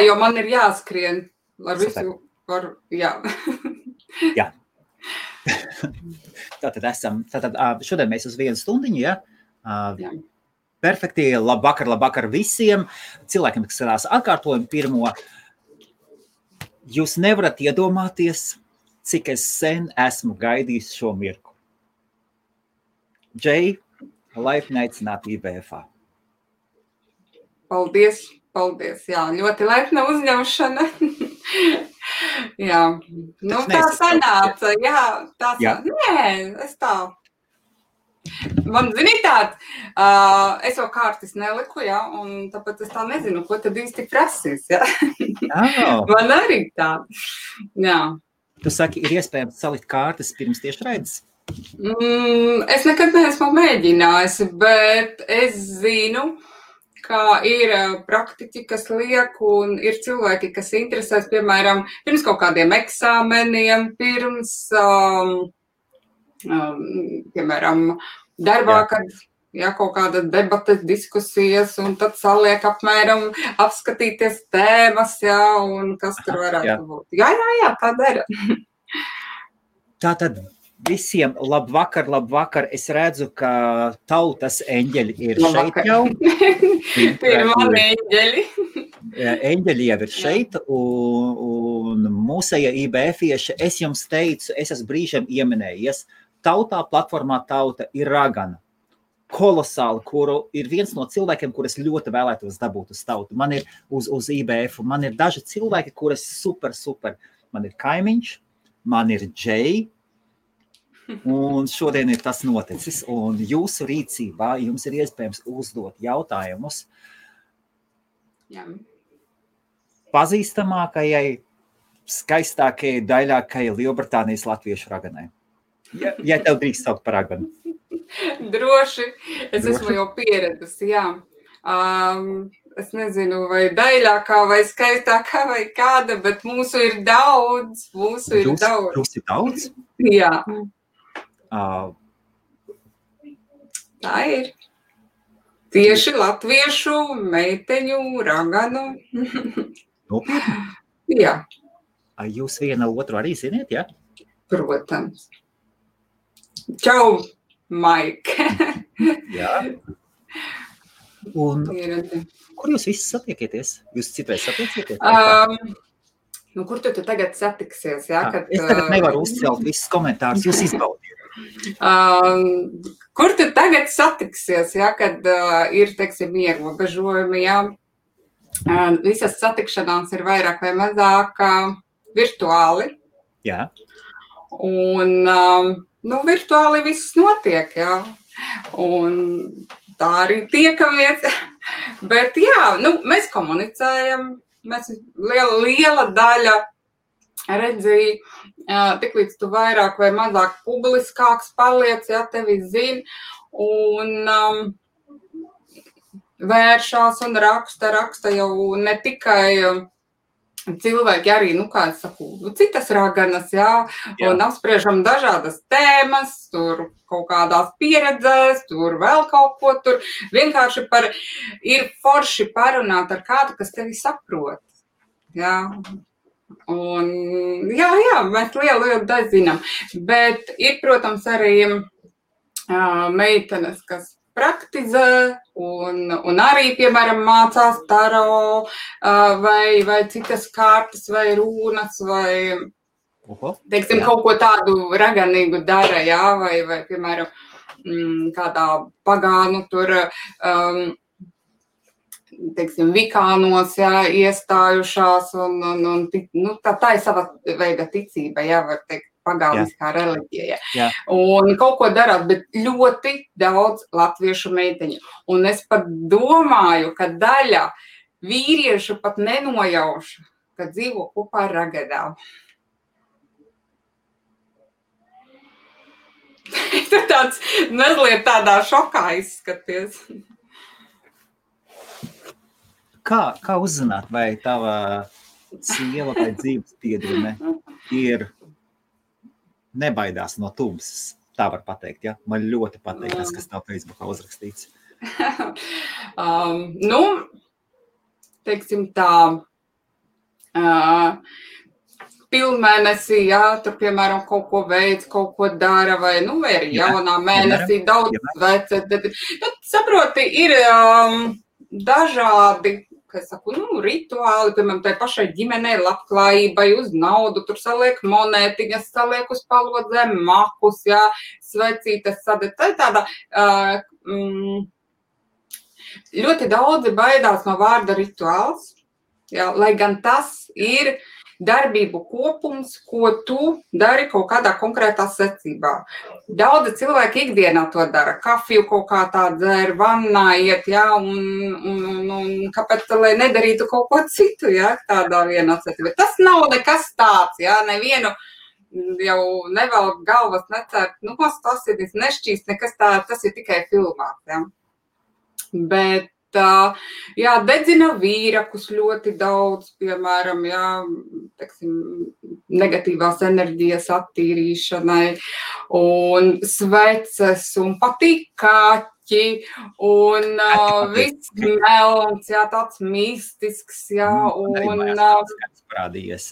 jo man ir jāskrien ar visu par, jā. Jā. Tātad šodien mēs uz 1 stundiņu, ja? Jā. Perfekti, labvakar visiem cilvēkiem, kas skatās atkārtojumu pirmo. Jūs nevarat iedomāties, cik es sen esmu gaidījis šo mirku. Džei, laipni aicināt IBF-ā. Paldies, jā, ļoti laipna uzņemšana. Jā, nu tā sanāca, jā. Nē, es tā. Man, zināt, es jau kārtas neliku, jā, un tāpēc es tā nezinu, ko tad īsti prasīs, jā. Man arī tā, jā. Tu saki, ir iespējams salikt kārtas pirms tiešraides? Es nekad neesmu mēģinājusi, bet es zinu, ka ir praktiķi, kas liek, un ir cilvēki, kas interesēs, piemēram, pirms kaut kādiem eksāmeniem, pirms... piemēram, darbā, kad kaut kāda debates, diskusijas, un tad saliek apmēram apskatīties tēmas, un kas tur varētu būt. Jā, tā dara. Tātad visiem labvakar. Es redzu, ka tautas eņģeļi ir šeit jau. Ir mani eņģeļi. Eņģeļi jau ir šeit, un mūsēja IBF-ieši, es jums teicu, es esmu brīžiem ieminējies, tautā, platformā Tauta ir ragana. Kolosāli, kuru ir viens no cilvēkiem, kur es ļoti vēlētos dabūt uz Tautu. Man ir uz IBF, man ir daži cilvēki, kuras super. Man ir Kaimiņš, man ir Džei, un šodien ir tas noticis. Un jūsu rīcībā jums ir iespējams uzdot jautājumus pazīstamākajai, skaistākajai, daļākajai Lielbritānijas latviešu raganai. Ja tev drīkst saukt par raganu. Droši. Es esmu jau pieradusi, jā. Es nezinu, vai daļākā, vai skaistākā, vai kāda, bet mūsu ir daudz. Jūs ir daudz? Jā. Tā ir. Tieši latviešu meiteņu raganu. Nopietni? Jā. Jūs viena otru arī ziniet, jā? Protams. Čau, Maik. Jā. Un kur jūs visi satiekieties? Jūs citreiz satiekieties? Kur tu tagad satiksies? Jā, kad, es tagad nevaru uzcelt visus komentārus, jūs izbaudiet. Kur tu tagad satiksies, jā, kad ir, teiksim, ierobežojumi, jā? Visas satikšanās ir vairāk vai mazāk virtuāli. Jā. Un, virtuāli viss notiek, jā. Un tā arī tiekamies. Bet jā, mēs komunicējam, mēs liela daļa redzīja, tiklīdz tu vairāk vai mazāk publiskāks paliec, jā, tevi zina, un vēršās un raksta jau ne tikai cilvēki arī, kā es saku, citas raganas, jā, un apspriežam dažādas tēmas, tur kaut kādās pieredzēs, tur vēl kaut ko, tur vienkārši ir forši parunāt ar kādu, kas tevi saprot, jā. Un, jā, mēs lielu daļu zinām, bet ir, protams, arī meitenes, kas praktizē un arī, piemēram, mācās taro vai citas kārtas vai rūnas vai, teiksim, kaut ko tādu raganīgu dara, jā, vai piemēram, kādā pagānu tur, teiksim, vikānos, jā, iestājušās un tā ir sava veida ticība, jā, var teikt. Pagāniskā reliģija. Jā. Un kaut ko darāt, bet ļoti daudz latviešu meiteņu. Un es pat domāju, ka daļa vīriešu pat nenojauša, ka dzīvo kopā ar ragadām. Tu tāds mazliet tādā šokā izskaties. Kā uzzināt, vai tava sieva vai dzīves biedrene ir nebaidās no tumsas, tā var pateikt, ja? Man ļoti patīk tas, kas tev Facebookā uzrakstīts. Teiksim tā, pilnmēnesī, jā, tur, piemēram, kaut ko veids, kaut ko dara, vai arī jaunā mēnesī daudz vece. Saproti, ir dažādi, kā es saku, rituāli, piemēram, tai pašai ģimenei labklājībai uz naudu, tur saliek monētiņas, saliek uz palodzēm makus, jā, svecītes sadēt. Tā ir tāda, ļoti daudzi baidās no vārda rituāls, jā, lai gan tas ir darbību kopums, ko tu dari kaut kādā konkrētā secībā. Daudzi cilvēki ikdienā to dara. Kafiju kaut kā tā dzer, vannā iet, jā, un kāpēc, lai nedarītu kaut ko citu, jā, tādā vienā secībā. Tas nav nekas tāds, jā, nevienu jau nevelk galvas necērt, tas ir nešķīst, nekas tā, tas ir tikai filmās, jā. Bet jā, dedzina vīrakus ļoti daudz, piemēram, jā, teiksim, negatīvās enerģijas attīrīšanai, un sveces, un patīk kaķi, un viss melns, jā, tāds mistisks, jā, un parādījies.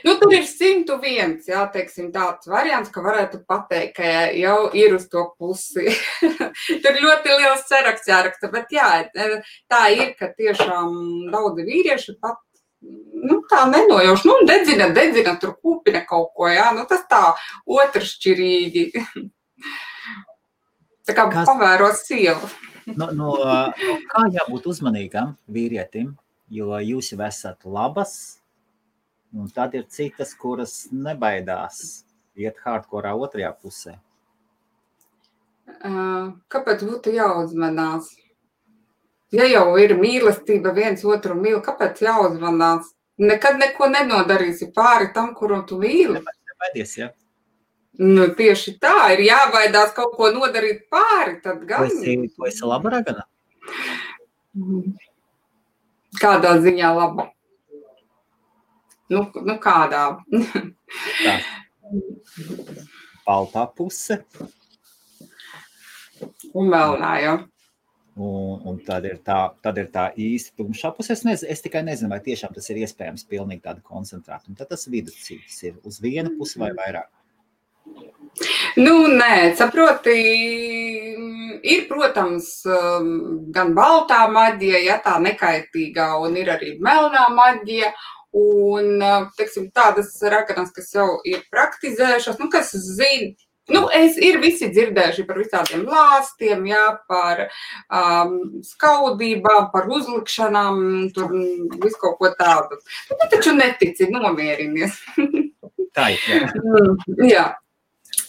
Tur ir 101, jā, teiksim, tāds variants, ka varētu pateikt, ka jau ir uz to pusi. Tur ļoti liels saraksts jāraksta, bet jā, tā ir, ka tiešām daudzi vīrieši pat, tā nenojauš, dedzina, tur kūpina kaut ko, jā, tas tā otršķirīgi. Tā kā pavēro sievu. Kā jābūt uzmanīgam vīrietim, jo jūs jau esat labas, un tad ir citas, kuras nebaidās iet hardkorā otrajā pusē. Kāpēc būtu jāuzmanās? Ja jau ir mīlestība, viens otru mīl, kāpēc jāuzmanās? Nekad neko nenodarīsi pāri tam, kuru tu mīli. Nebaidies, jā. Tieši tā, ir jābaidās kaut ko nodarīt pāri, tad gan. Tu esi laba ragana? Kādā ziņā laba? Kādā? Tā. Baltā puse. Un melnā, jā. Un tad ir tā īsti tumšā puse. Es tikai nezinu, vai tiešām tas ir iespējams pilnīgi tāda koncentrēta. Un tad tas viduscīgs ir uz vienu pusi vai vairāk. Nē, saproti, ir, protams, gan baltā maģija, ja tā nekaitīgā, un ir arī melnā maģija, un, teiksim, tādas raganas, kas jau ir praktizējušas, kas zina, ir visi dzirdējuši par visādiem lāstiem, jā, par skaudībām, par uzlikšanām, tur visu kaut ko tādu. Tu taču netici, nomierinies. Tā ir, jā. Jā.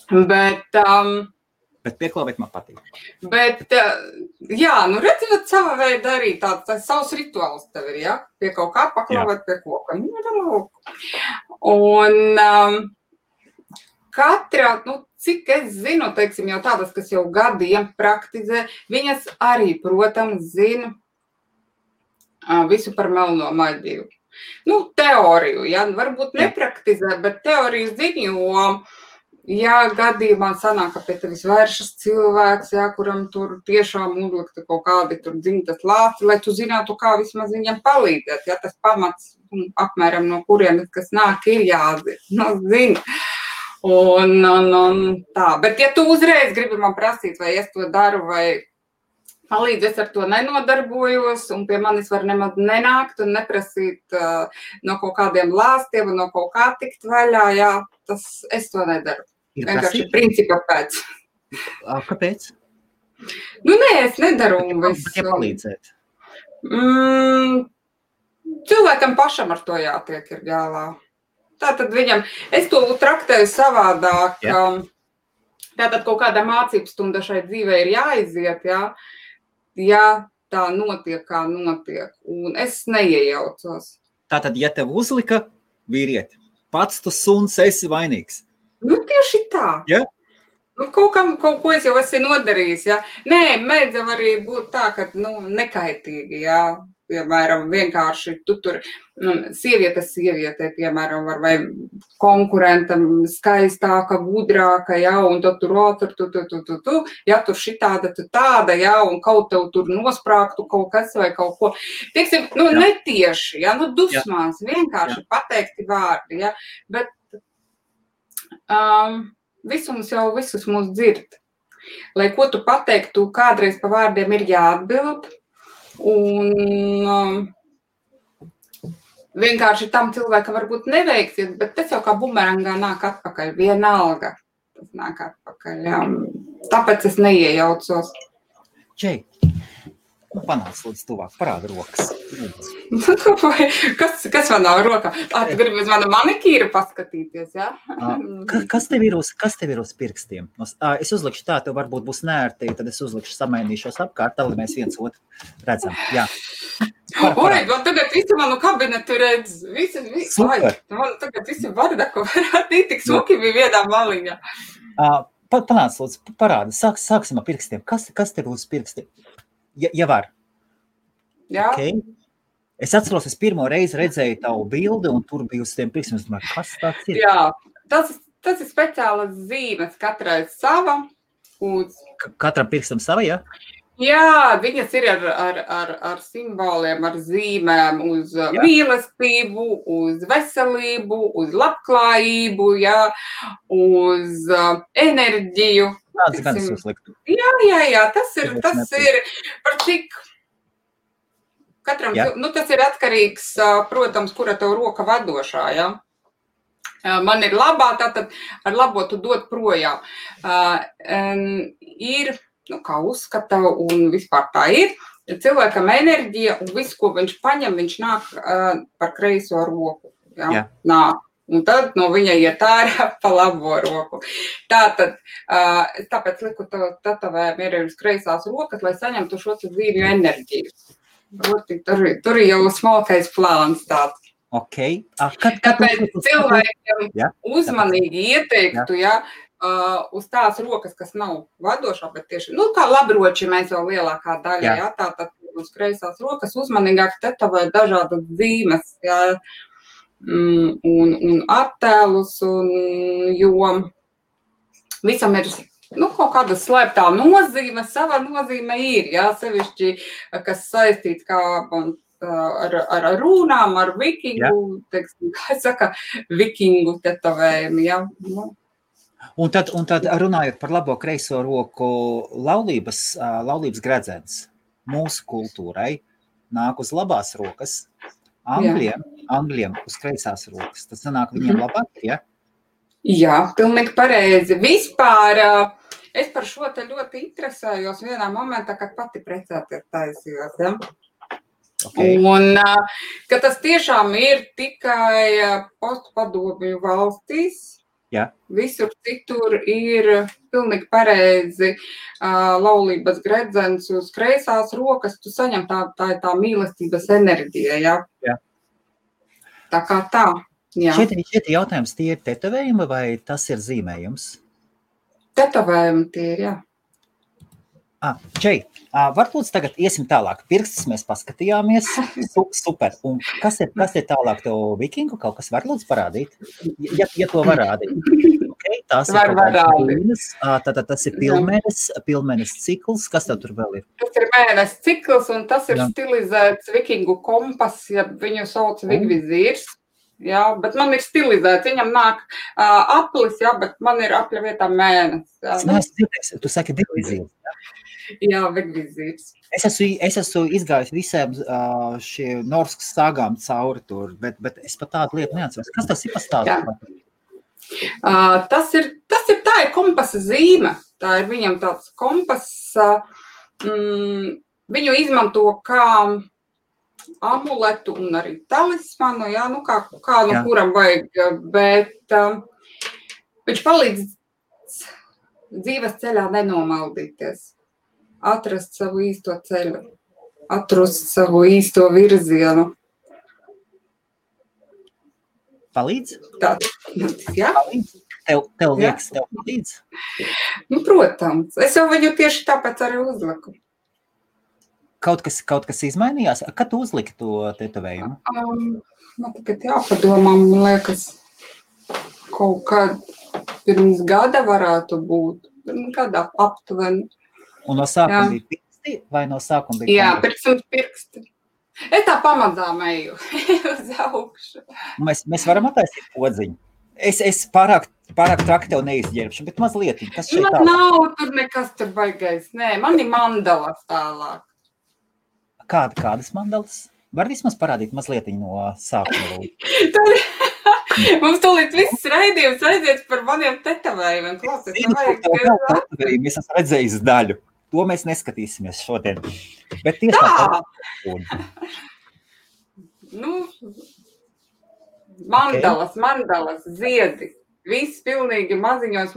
Bet pieklāvēt man patīk. Bet, jā, redzot sava veida arī tāds savs rituāls tev ir, jā? Pie kaut kā paklāvēt pie koka. Un katra, cik es zinu, teiksim, jau tādas, kas jau gadiem praktizē, viņas arī, protams, zina visu par melno maģiju. Teoriju, jā, varbūt nepraktizē, bet teoriju zina, jo ja gadījumā sanāk, ka pie tevis vēršas cilvēks, jā, kuram tur tiešām uzlikta kaut kādi tur dzimtas lāsti, lai tu zinātu, kā vismaz viņam palīdzēt, ja tas pamats apmēram no kurienes, kas nāk, ir jāzina. Un tā, bet ja tu uzreiz gribi man prasīt, vai es to daru, vai palīdzi, es ar to nenodarbojos, un pie manis var nemaz nenākt un neprasīt no kaut kādiem lāstiem un no kaut kā tikt vaļā, jā, es to nedaru. Vienkārši principa pēc. Kāpēc? Nē, es nedaru visu. Ja palīdzēt? Cilvēkam pašam ar to jātiek ir galā. Tātad viņam, es to traktēju savādāk. Tātad kaut kāda mācības stunda šai dzīvē ir jāiziet, jā. Ja tā notiek, kā notiek. Un es neiejaucos. Tātad, ja tev uzlika vīrieti, pats tu suns esi vainīgs. Tieši tā. Ja? Kaut ko es jau esmu nodarījis, jā. Nē, mēdz arī būt tā, ka, nekaitīgi, jā. piemēram, vienkārši tu tur sievietei, piemēram, var vai konkurentam skaistāka, gudrāka, ja, un tad tur, ja tur šitāda, tu tāda, ja, un kaut tev tur nosprāktu kaut kas vai kaut ko. Teiksim, netieši, ja, dusmās, vienkārši pateikti vārdi, ja, bet visums jau visus mūs dzird. Lai ko tu pateiktu, kādreiz pa vārdiem ir jāatbild, un vienkārši tam cilvēkam varbūt neveiksies, bet tas jau kā bumerangā nāk atpakaļ, vienalga. Tas nāk atpakaļ, jā. Tāpēc es neiejaucos. Džei, panāc līdz tuvāk, parāda rokas. Kas man nav rokā? Tu gribi uz manu manikīru paskatīties, jā? Kas tev ir uz pirkstiem? Es uzlikšu tā, tev varbūt būs nērti, tad es uzlikšu samainīšos apkārt, tā, lai mēs viens otru redzam. Jā. Oi, man tagad visi manu kabinetu redz. Super. Man tagad visi vardaku varētu tik suki bija vienā maliņā. Panāc, lūdzu, parāda. Sāksim ar pirkstiem. Kas tev uz pirkstiem? Ja var. Jā. Okay. Es atceros, es pirmo reizi redzēju tavu bildi, un tur bija uz tiem pirkstiem. Es domāju, kas tāds ir? Jā, tas ir speciālas zīmes, katrai sava. Katram pirkstam sava, jā? Jā, viņas ir ar simboliem, ar zīmēm uz mīlestību, uz veselību, uz labklājību, jā, uz enerģiju. Tāds gan es uzliktu. Jā, tas ir par cik katram, tas ir atkarīgs, protams, kura tev roka vadošā, jā. Man ir labā, tātad ar labo tu dod projām. Ir, kā uzskata, un vispār tā ir, cilvēkam enerģija un viss, ko viņš paņem, viņš nāk par kreiso roku. Jā. Nāk. Un tad no viņa iet ārā pa labo roku. Tāpēc liku tatavējumu ir uz kreisās rokas, lai saņemtu šo zīmju enerģiju. Tur ir jau smalkais plāns tāds. Okay. Tāpēc cilvēkiem uzmanīgi ieteiktu, uz tās rokas, kas nav vadošā, bet tieši, kā labroči mēs jau lielākā daļa, tātad uz kreisās rokas uzmanīgāk tetavē dažādas zīmes, un attēlus, jo visam ir kaut kāda slēptā nozīme, sava nozīme ir, sevišķi, kas saistīts kā ar runām, ar vikingu, teiksim, kā saka, vikingu tetavējumu, Un tad runājot par labo kreiso roku, laulības gredzens mūsu kultūrai nāk uz labās rokas, Angļiem uz kreisās rokas. Tas sanāk viņiem labāk, ja? Jā, pilnīgi pareizi. Vispār es par šo te ļoti interesējos vienā momentā, kad pati precēties taisījos, ja? Okay. Un, ka tas tiešām ir tikai postpadomju valstīs. Jā. Visur citur ir pilnīgi pareizi laulības gredzens uz kreisās rokas, tu saņem tā mīlestības enerģija, jā. Tā kā tā, jā. Šeit jautājums, tie ir tetovējumi vai tas ir zīmējums? Tetovējumi tie ir, jā. Džei, varbūt tagad iesim tālāk. Pirkstus mēs paskatījāmies. Super. Un kas ir tālāk tev vikingu? Kaut kas var lūdzu parādīt? Ja to var rādīt. Okay, tās var rādīt. Tātad tas ir pilnmēnes cikls. Kas tev tur vēl ir? Tas ir mēnes cikls un tas ir stilizēts vikingu kompas, ja viņu sauc vigvizīrs. Jā, bet man ir stilizēts. Viņam nāk aplis, bet man ir apļa vietā mēnes. Tu saki vigvizīrs. Jā, vigvizīrs. Es esmu izgājis visiem šie norskas sāgām cauri tur, bet es pat tādu lietu neatceros. Kas tas ir pastāstīt? Tas ir kompasa zīme. Tā ir viņam tāds kompas. Viņu izmanto kā amuletu un arī talismanu, kā no kuram vajag, bet viņš palīdz dzīves ceļā nenomaldīties. Atrast savu īsto ceļu, atrast savu īsto virzienu. Palīdz? Jā. Palīdz? Tev liekas, tev palīdz? Protams. Es jau viņu tieši tāpēc arī uzliku. Kaut kas izmainījās? Kad tu uzliki to tetovējumu? Man tagad jāpadomā, man liekas, kaut kad pirms gada varētu būt. Gada aptuveni. Un no sākuma bija pirksti vai no sākuma bija? Jā, pirksti. Es tā pamazām eju uz augšu. Mēs varam attaisīt podziņu. Es pārāk traki tev neizģērbšu, bet mazliet. Kas šeit tālāk? Man nav tur nekas tur baigais. Nē, man ir mandalas tālāk. Kādas mandalas? Var vismaz parādīt mazliet no sākuma? Mums tūlīt viss raidījums aiziet par maniem tetovējumiem. Es esmu redzējis daļu. To mēs neskatīsimies šodien. Bet tieši mandalas, ziedi. Viss pilnīgi maziņos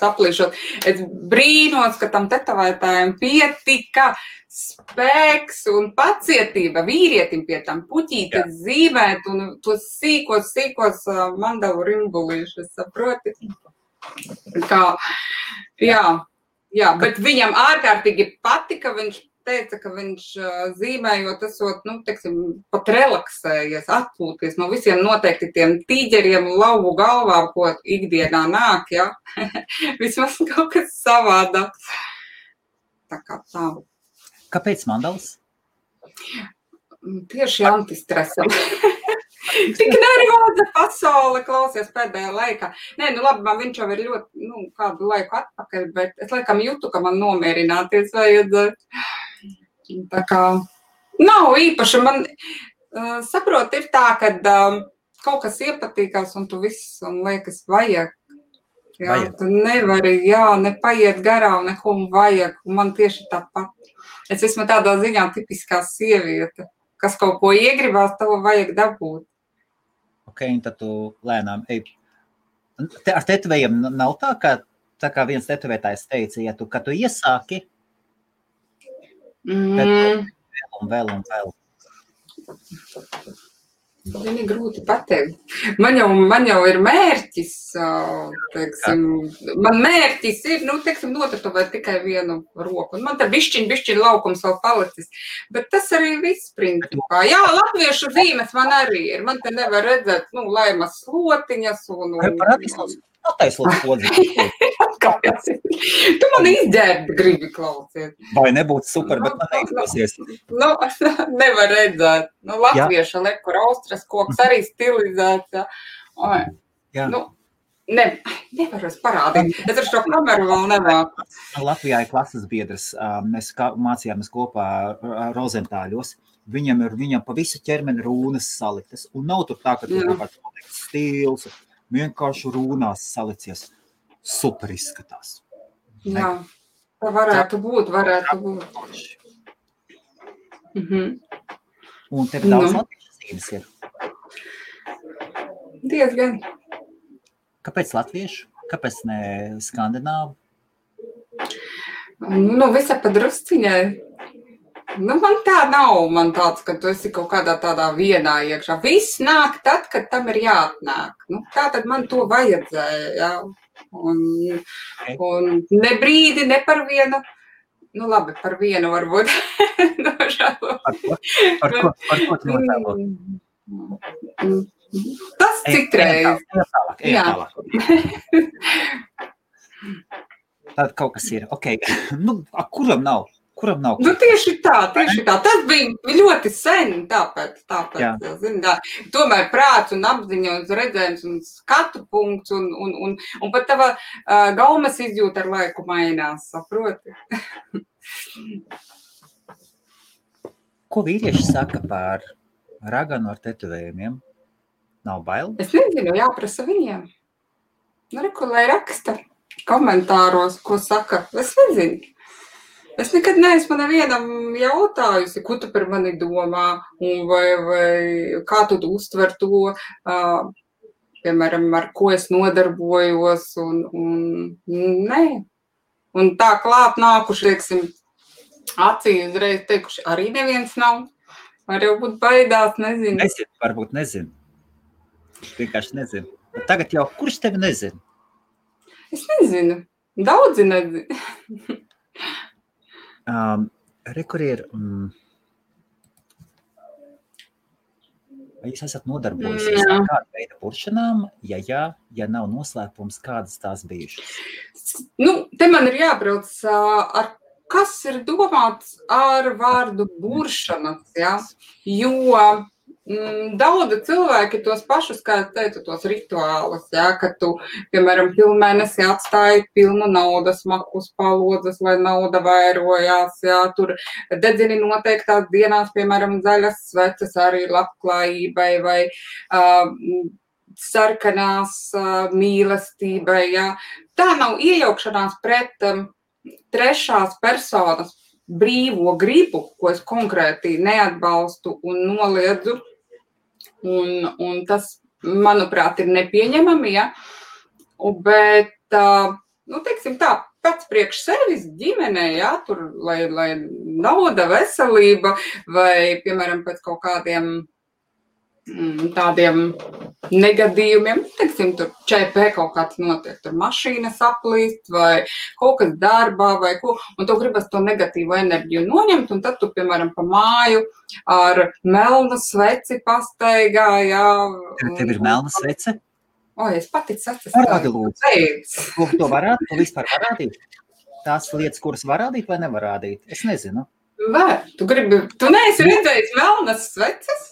aplīšot. Es brīnos, ka tam tetovētājiem pietika spēks un pacietība vīrietim pie tam puķītes zīmēt un tos sīkos mandalu rimbulīšus, saproti? Bet viņam ārkārtīgi patika, viņš teica, ka viņš zīmējot esot, pat relaksējies, atpūties no visiem noteikti tiem tīģeriem lauvu galvā, ko ikdienā nāk, ja? Vismaz kaut kas savādāk. Tā kā tā. Kāpēc mandalas? Tieši antistresam. Tik nervoza pasaule klausies pēdējā laikā. Nē, labi, man viņš jau ir ļoti, kādu laiku atpakaļ, bet es laikam jūtu, ka man nomierināties vajadzētu. Tā kā nav īpaši. Man, saprot, ir tā, kad kaut kas iepatīkās un tu viss, un liekas, vajag. Jā, tu nevari, nepaiet garām, neko vajag. Un man tieši tāpat. Es esmu tādā ziņā tipiskā sieviete, kas kaut ko iegribās, to vajag dabūt. Ok, un tad tu lēnām ej. Ar tetovējiem nav tā, kā viens tetovētājs teica, kad tu iesāki, tad vēl. Viņi grūti pateikt. Man jau ir mērķis, man mērķis ir, notetovēt tikai vienu roku. Un man te bišķiņ laukums vēl palicis. Bet tas arī viss principā. Jā, latviešu zīmes man arī ir. Man te nevar redzēt, laimas slotiņas un... Attaislots podziņu. Tu man izģērbi gribi klausies. Vai nebūtu super, bet man neizdosies. Nevar redzēt. Latvieša lekur austras koks arī stilizēts. Jā. Nevaru es parādīt. Es ar šo kameru vēl nemāku. Latvijā ir klases biedrs. Mēs mācījāmies kopā Rozentāļos. Viņam pa visu ķermeni rūnas saliktas. Un nav tur tā, ka tur kaut stils. Vienkārši rūnās salicies. Super izskatās. Jā, tā varētu būt. Un tev daudz latviešu zīmes ir? Diezgan. Kāpēc latviešu? Kāpēc ne skandināvu? Visa pa drusciņai. Man tā nav, man tāds, ka tu esi kaut kādā tādā vienā iekšā. Viss nāk tad, kad tam ir jāatnāk. Tā tad man to vajadzēja, jā. Un ne brīdi, ne par vienu. Labi, par vienu varbūt. Par ko tu nožēlo? Tas citreiz. Tālāk. Tad kaut kas ir. Ok, kuram nav? Tieši tā. Tas bija ļoti sen, tāpēc, tomēr prāts un apziņa un redzējums un skatu punkts un pat tava gaumas izjūta ar laiku mainās, saproti? Ko vīrieši saka par raganu ar tetovējumiem? Nav bail? Es nezinu, jāprasa viņiem. Lai raksta komentāros, ko saka. Es nezinu. Es nekad neesmu nevienam jautājusi, ko tu par mani domā, vai kā tu uztver to, piemēram, ar ko es nodarbojos, un nē. Un tā klāt nākuši, acī uzreiz teikuši, arī neviens nav. Var jau būt baidās, nezinu. Varbūt nezinu. Vienkārši nezinu. Bet tagad jau, kurš tevi nezinu? Es nezinu. Daudzi nezinu. Kur ir... Vai jūs esat nodarbojusies ar kādu veidu puršanām, ja nav noslēpums, kādas tās bijušas? Te man ir jābrauc ar kas ir domāts ar vārdu buršanas, ja? Jo daudzi cilvēki tos pašus, kā es teicu, tos rituālus, ja? Kad tu, piemēram, pilnmēnesi atstāji pilnu naudas maku uz palodzes, lai nauda vairojās, ja? Tur dedzini noteiktās dienās, piemēram, zaļas sveces arī labklājībai vai sarkanās mīlestībai, ja? Tā nav iejaukšanās pret trešās personas brīvo gribu, ko es konkrēti neatbalstu un noliedzu, un tas, manuprāt, ir nepieņemami, ja? Bet, teiksim tā, pats priekš sevis ģimenē, ja? Tur, lai nauda, veselība vai, piemēram, pēc kaut kādiem tādiem negadījumiem, teiksim, tur ČP kaut kāds notiek, tur mašīna saplīst vai kaut kas darbā vai ko, un tu gribas to negatīvo enerģiju noņemt, un tad tu, piemēram, pa māju ar melnu sveci pastaigā, jā. Tev ir melna svece? Es pati sveces. Parādi, lūdzu. To varētu, tu vispār varādīt? Tās lietas, kuras var rādīt vai nevar rādīt? Es nezinu. Var. Tu neesi redzējis melnas sveces?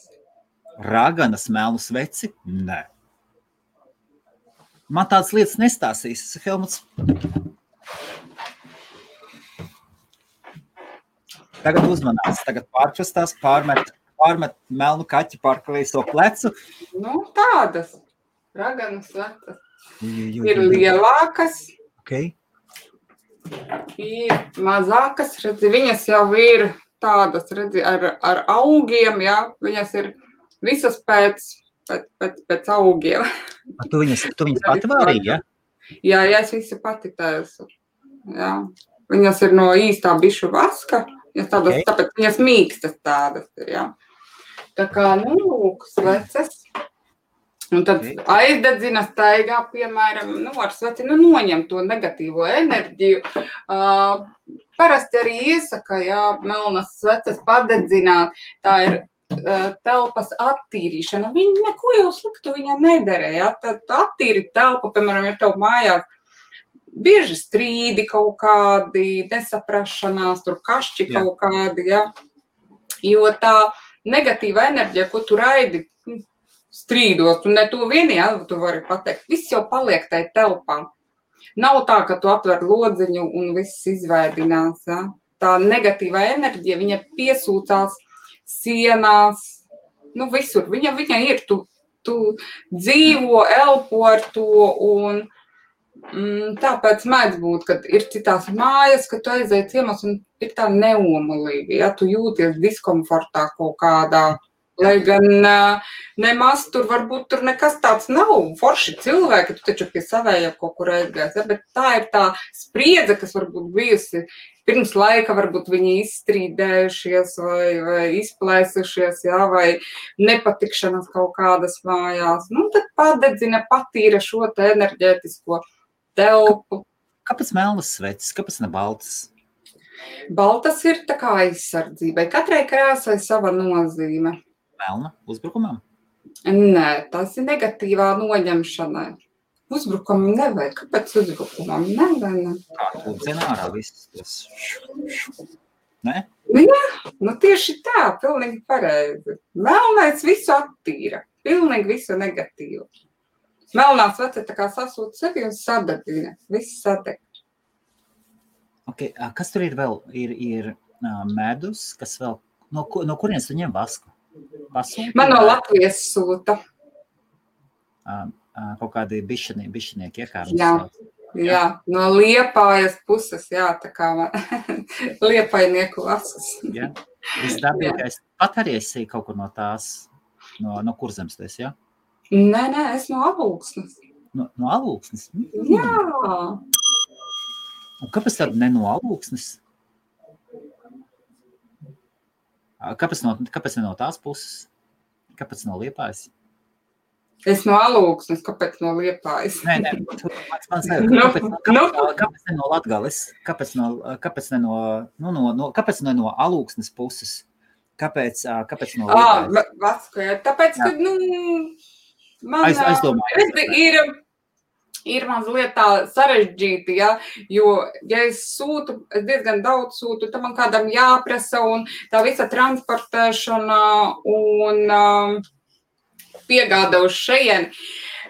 Raganas melnu sveci? Nē. Man tādas lietas nestāsīs, Helmuts. Tagad uzmanās, tagad pārkustās, pārmet melnu kaķi pār kreiso plecu. Tādas raganas sveces. Ir lielākas. Okay. Ir mazākas, redzi, viņas jau ir tādas, redzi, ar augiem, jā, viņas ir visas pēc augiem. Tu viņas pati vārīji, ja? Jā, es visu pati taisu. Jā. Viņas ir no īstā bišu vaska, tādas, tāpēc viņas mīkstas tādas ir, jā. Tā kā, lūk, sveces. Un tad aizdedzina staigā, piemēram, ar sveci, noņem to negatīvo enerģiju. Parasti arī iesaka, jā, melnas sveces padedzināt, tā ir telpas attīrīšana. Viņa neko jau sliktu viņa nederē, jā, tad attīri telpu, piemēram, ja tev mājās bieži strīdi kaut kādi, nesaprašanās, tur kašķi kaut kādi, jā. Jo tā negatīva enerģija, ko tu raidi strīdos, un ne to vieni, jā, tu vari pateikt, viss jau paliek tai telpā. Nav tā, ka tu atver lodziņu un viss izvēdinās, jā. Tā negatīvā enerģija, viņa piesūcās sienās, visur. Viņa ir, tu dzīvo, elpo ar to, un tāpēc mēdz būt, kad ir citās mājas, ka tu aizēji ciemos un ir tā neomulīgi, ja tu jūties diskomfortā kaut kādā, lai gan nemaz tur varbūt tur nekas tāds nav, forši cilvēki, tu taču pie savējiem kaut kur aizgājas, ja? Bet tā ir tā spriedze, kas varbūt bijusi pirms laika, varbūt viņi izstrīdējušies vai izplēsušies, jā, vai nepatikšanas kaut kādas mājās. Tad padedzina, patīra šo te enerģētisko telpu. Kāpēc melnas sveces? Kāpēc ne baltas? Baltas ir tā kā aizsardzībai. Katrai krāsai sava nozīme. Melna uzbrukumam? Nē, tas ir negatīvā noņemšanai. Uzbrukumam nevajag. Kāpēc uzbrukumam? Nevajag. Kā tu dzina ārā viss tas? Ne? Jā, tieši tā, pilnīgi pareizi. Melnais visu attīra. Pilnīgi visu negatīvu. Melnā svece tā kā sasūta sevi un sadedzina. Viss sadeg. Okay. Kas tur ir vēl? Ir medus, kas vēl... No kurienes tu ņem vasku? Pasūti? Man no Latvijas sūta. Kaut kādi bišinieki iekārtas. Jā, no Liepājas puses, jā, tā kā liepainieku vasas. Jā, visdabīgais. Pat arī esi kaut kur no tās, no Kurzemes, jā? Nē, es no Alūksnes. No Alūksnes? Jā. Un kāpēc tad ne no Alūksnes? Kāpēc ne no tās puses? Kāpēc no Liepājas? Es no Alūksnes, kāpēc no Liepājas? Nē, mans kāpēc ne no Latgales? Kāpēc ne no Alūksnes puses? Kāpēc no Liepājas? Tāpēc, ka, man ir mazliet tā sarežģīti, ja, jo, ja es sūtu, es diezgan daudz sūtu, tad man kādam jāprasa un tā visa transportēšana un piegāda uz šejieni.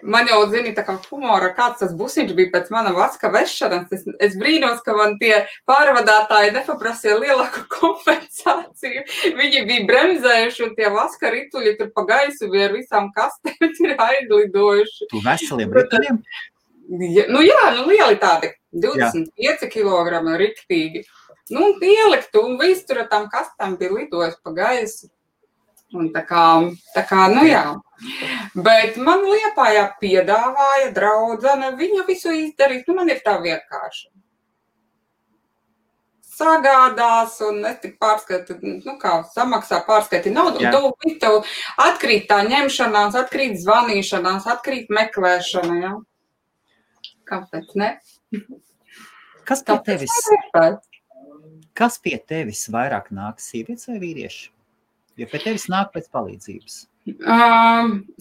Man jau, zini, tā kā humora, kāds tas busiņš bija pēc mana vaska vešanas. Es brīnos, ka man tie pārvadātāji nepaprasīja lielāku kompensāciju. Viņi bija bremzējuši un tie vaska rituļi tur pa gaisu bija ar visām kastēm ir aizlidojuši. Tu veseliem rituļiem? Lieli tādi, 25 kilogrami riktīgi. Ielikt un viss tur ar tām kastēm bija lidojis pa gaisu. Un tā kā, jā. Bet man Liepājā piedāvāja draudzene, viņa visu izdarīt, man ir tā vienkārši. Sagādās un es tik pārskaiti, samaksā pārskaiti naudu, un tev atkrīt tā ņemšanās, atkrīt zvanīšanās, atkrīt meklēšana, jā. Kāpēc ne? Kas pie tevis vairāk nāk, sievietes vai vīrieši? Jo pie tevis nāk pēc palīdzības.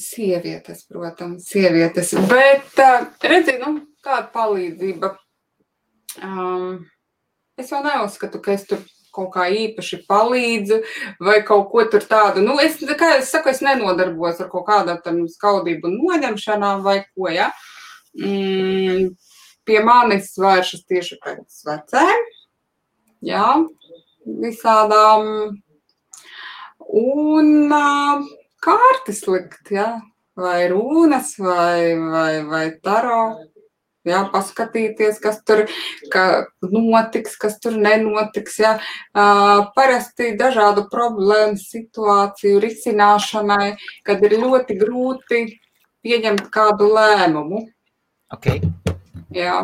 Sievietes, protams, sievietes. Bet, redzi, kāda palīdzība. Es jau neuzskatu, ka es tur kaut kā īpaši palīdzu vai kaut ko tur tādu. Kā es saku, es nenodarbos ar kaut kādām skaudību noņemšanām vai ko, ja. Pie manis vēršas tieši pēc vecēm, jā, visādām. Un kārtas likt, jā, vai rūnas, vai taro, jā, paskatīties, kas tur notiks, kas tur nenotiks, jā. Parasti dažādu problēmu situāciju risināšanai, kad ir ļoti grūti pieņemt kādu lēmumu. Okay. Jā.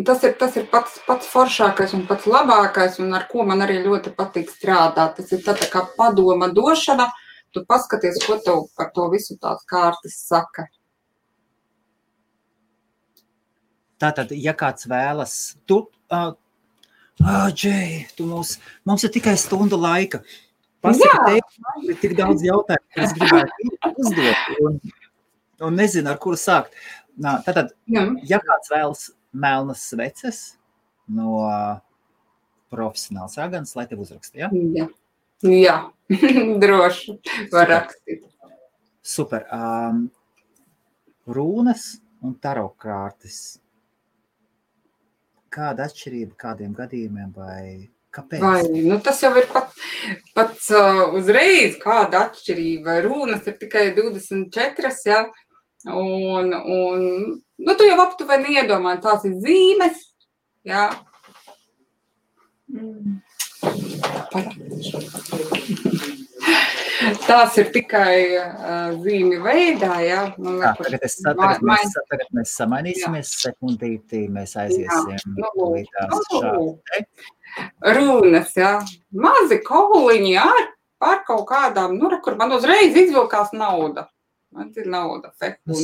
Tas ir pats foršākais un pats labākais, un ar ko man arī ļoti patīk strādāt. Tas ir tā kā padoma došana, tu paskaties, ko tev par to visu tās kārtas saka. Tātad, ja kāds vēlas, Džei, mums ir tikai stunda laika. Pasaka, tev ir tik daudz jautājumu, ka es gribētu uzdot, un nezinu, ar kuru sākt. Tātad, ja kāds vēlas melnas sveces no profesionāls raganas, lai tev uzraksta, ja? Jā, droši var rakstīt. Super. Rūnas un taro kārtas. Kāda atšķirība kādiem gadījumiem vai kāpēc? Tas jau ir pats uzreiz kāda atšķirība. Rūnas ir tikai 24, ja? Un tu jau aptuveni iedomā, tās ir zīmes, jā. Tās ir tikai zīmi veidā, jā. Tagad mēs samainīsimies sekundītī, mēs aiziesim līdās šādi. Runas, jā. Mazi kauliņi ar kaut kādām, kur man uzreiz izvilkās nauda. Man ir nauda,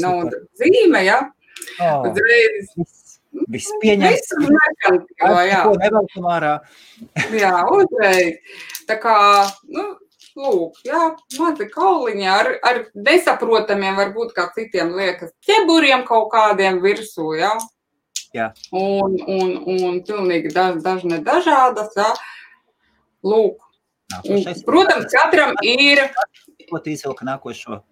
nauda zīme, jā. Uzreiz. Viss pieņemts. Jā, uzreiz. Tā kā, lūk, jā, mazi kauliņi ar nesaprotamiem, varbūt kā citiem liekas, ķeburiem kaut kādiem virsū, jā. Jā. Un pilnīgi dažādas, jā. Lūk. Protams, katram ir. Ko tu izvilka nākošo?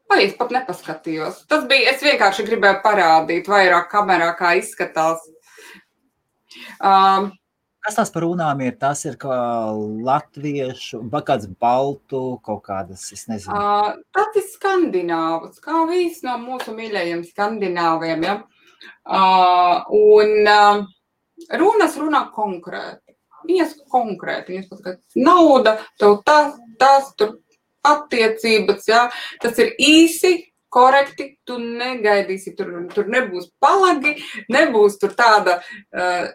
Vai es pat nepaskatījos. Es vienkārši gribēju parādīt vairāk kamerā, kā izskatās. Kas tās par runām ir? Tas ir kā latviešu, vai kāds baltu, kaut kādas, es nezinu. Tas ir skandināvs, kā viss no mūsu mīļajiem skandināviem, ja? Un runas runā konkrēti. Viņas konkrēti. Viņas pat, nauda, tev tas tur attiecības, jā, tas ir īsi, korekti, tu negaidīsi, tur nebūs palagi, nebūs tur tāda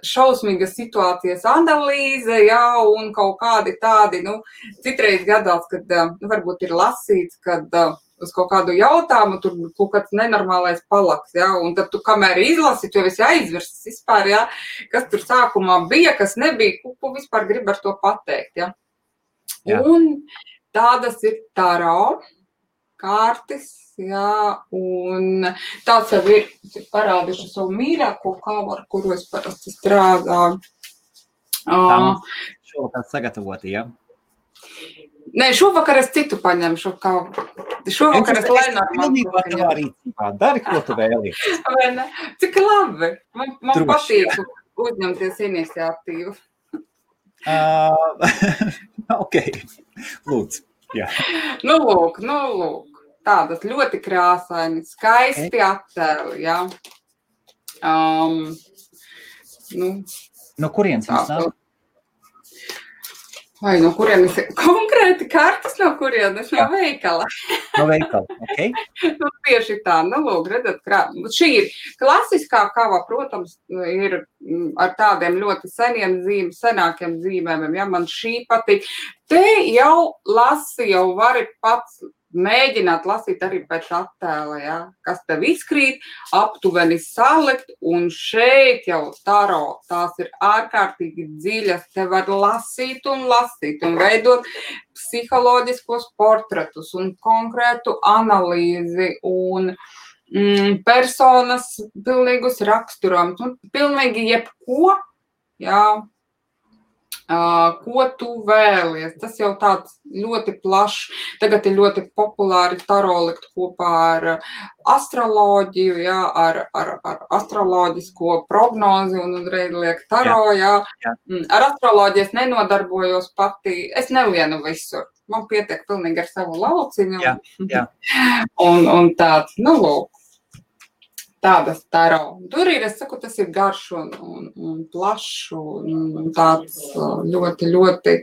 šausmīga situācijas analīze, jā, un kaut kādi tādi, citreiz gadās, kad varbūt ir lasīts, kad uz kaut kādu jautājumu, tur kaut kāds nenormālais palaks, ja, un tad tu, kamēr izlasi, tu jau esi aizvirsis vispār, ja, kas tur sākumā bija, kas nebija, ko vispār grib ar to pateikt, ja. Un tādas ir taro kārtis, jā, un tāds jau ir parādīšu savu mīļāko kāvu, ar kuru es parasti strādāju. Šovakar sagatavoti, ja? Nē, šovakar es citu paņemšu kāvu. Šovakar es Lenormandu paņemšu. Dari, ko tu vēlies. Cik labi. Man patīk uzņemties iniciatīvu. Ok, lūdzu. Jā. Nu, lūk. Tādas ļoti krāsaini, skaisti attēli, jā. No kurienes jums nāk? Vai no kurienes? Konkrēti kartas no kurienes? No veikala. No veikala, ok. Nu, tieši tā, lūk, redzat, šī ir klasiskā kava, protams, ir ar tādiem ļoti senākiem zīmēm, ja man šī patīk. Te jau vari pats mēģināt lasīt arī pēc attēla, ja, kas tev izkrīt, aptuveni salikt, un šeit jau taro, tās ir ārkārtīgi dziļas, te var lasīt un veidot psiholoģiskos portretus un konkrētu analīzi un personas pilnīgus raksturojumus, un pilnīgi jebko, jā, ko tu vēlies. Tas jau tāds ļoti plašs. Tagad ir ļoti populāri taro likt kopā ar astroloģiju, jā, ar astroloģisko prognozi un uzreiz liek taro, jā. Ar astroloģiju es nenodarbojos pati, es nelienu visur. Man pietiek pilnīgi ar savu lauciņu. Jā. Un tāds, lūk. Tādas taro. Tur ir, es saku, tas ir garš un plašs un tāds ļoti, ļoti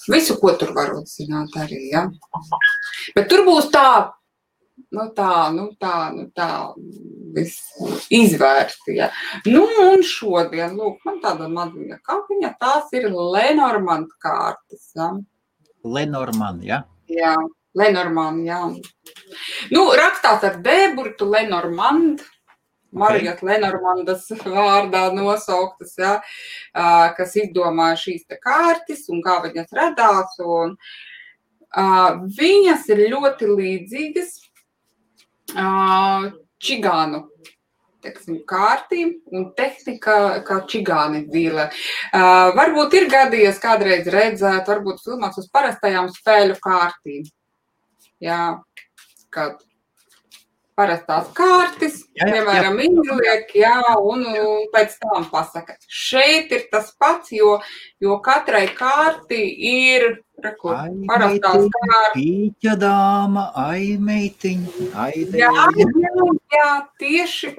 visu, ko tur var uzzināt arī, ja. Bet tur būs tā viss izvērsti, ja. Un šodien, lūk, man tāda maziņa kapiņa, tās ir Lenormand kārtas, ja. Lenormand, ja? Jā. Lenormand, jā. Rakstās ar D-burtu Lenormand, Marijas Lenormandas vārdā nosauktas, jā, kas izdomāja šīs te kārtas un kā viņas radās. Un, viņas ir ļoti līdzīgas čigānu, teiksim, kārtīm un tehnika kā čigāni dzīvē. Varbūt ir gadījies kādreiz redzēt, varbūt filmās uz parastajām spēļu kārtīm. Jā, kad parastās kārtas, piemēram, izliek, jā, un pēc tam pasaka. Šeit ir tas pats, jo katrai kārtī ir parastās kārtas. Pīķa dāma, meitiņ, Jā, tieši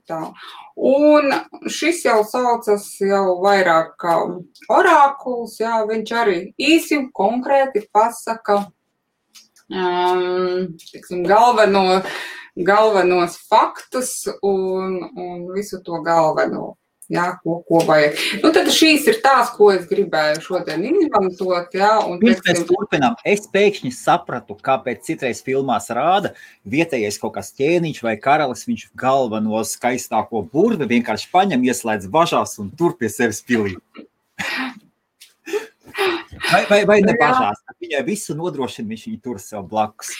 tā. Un šis jau saucas jau vairāk kā orākuls, jā, viņš arī īsi un konkrēti pasaka, tiksim, galvenos faktus un visu to galveno, jā, ko vajag. Tad šīs ir tās, ko es gribēju šodien izmantot, jā. Pirms mēs turpinām, es pēkšņi sapratu, kāpēc citreiz filmās rāda vietējais kaut kāds ķēniņš vai karalis, viņš galveno skaistāko burvi vienkārši paņem, ieslēdz važās un tur pie sevis pilī. Vai ne bažās? Viņai visu nodrošina, viņš viņu tur sev blakus.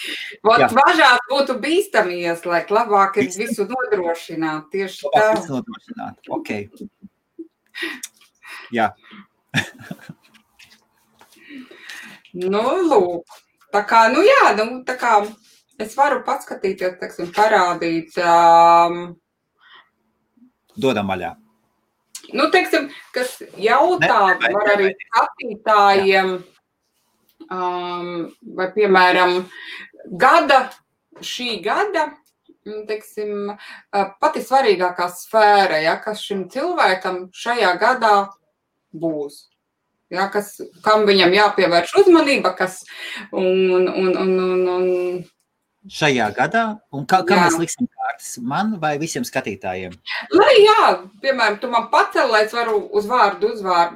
Važās būtu bīstami ieslēgt, labāk ir visu nodrošināt, tieši tā. Visu nodrošināt, ok. Jā. Lūk. Tā kā, es varu paskatīties, teiksim, parādīt. Dodam vaļā. Teiksim, kas jautā, var arī skatītājiem, vai, piemēram, šī gada, teiksim, pati svarīgākā sfēra, ja, kas šim cilvēkam šajā gadā būs. Ja, kam viņam jāpievērš uzmanība, šajā gadā, un kā mēs liksim kārtas, man vai visiem skatītājiem? Lai jā, piemēram, tu man pacel, lai es varu uz vārdu,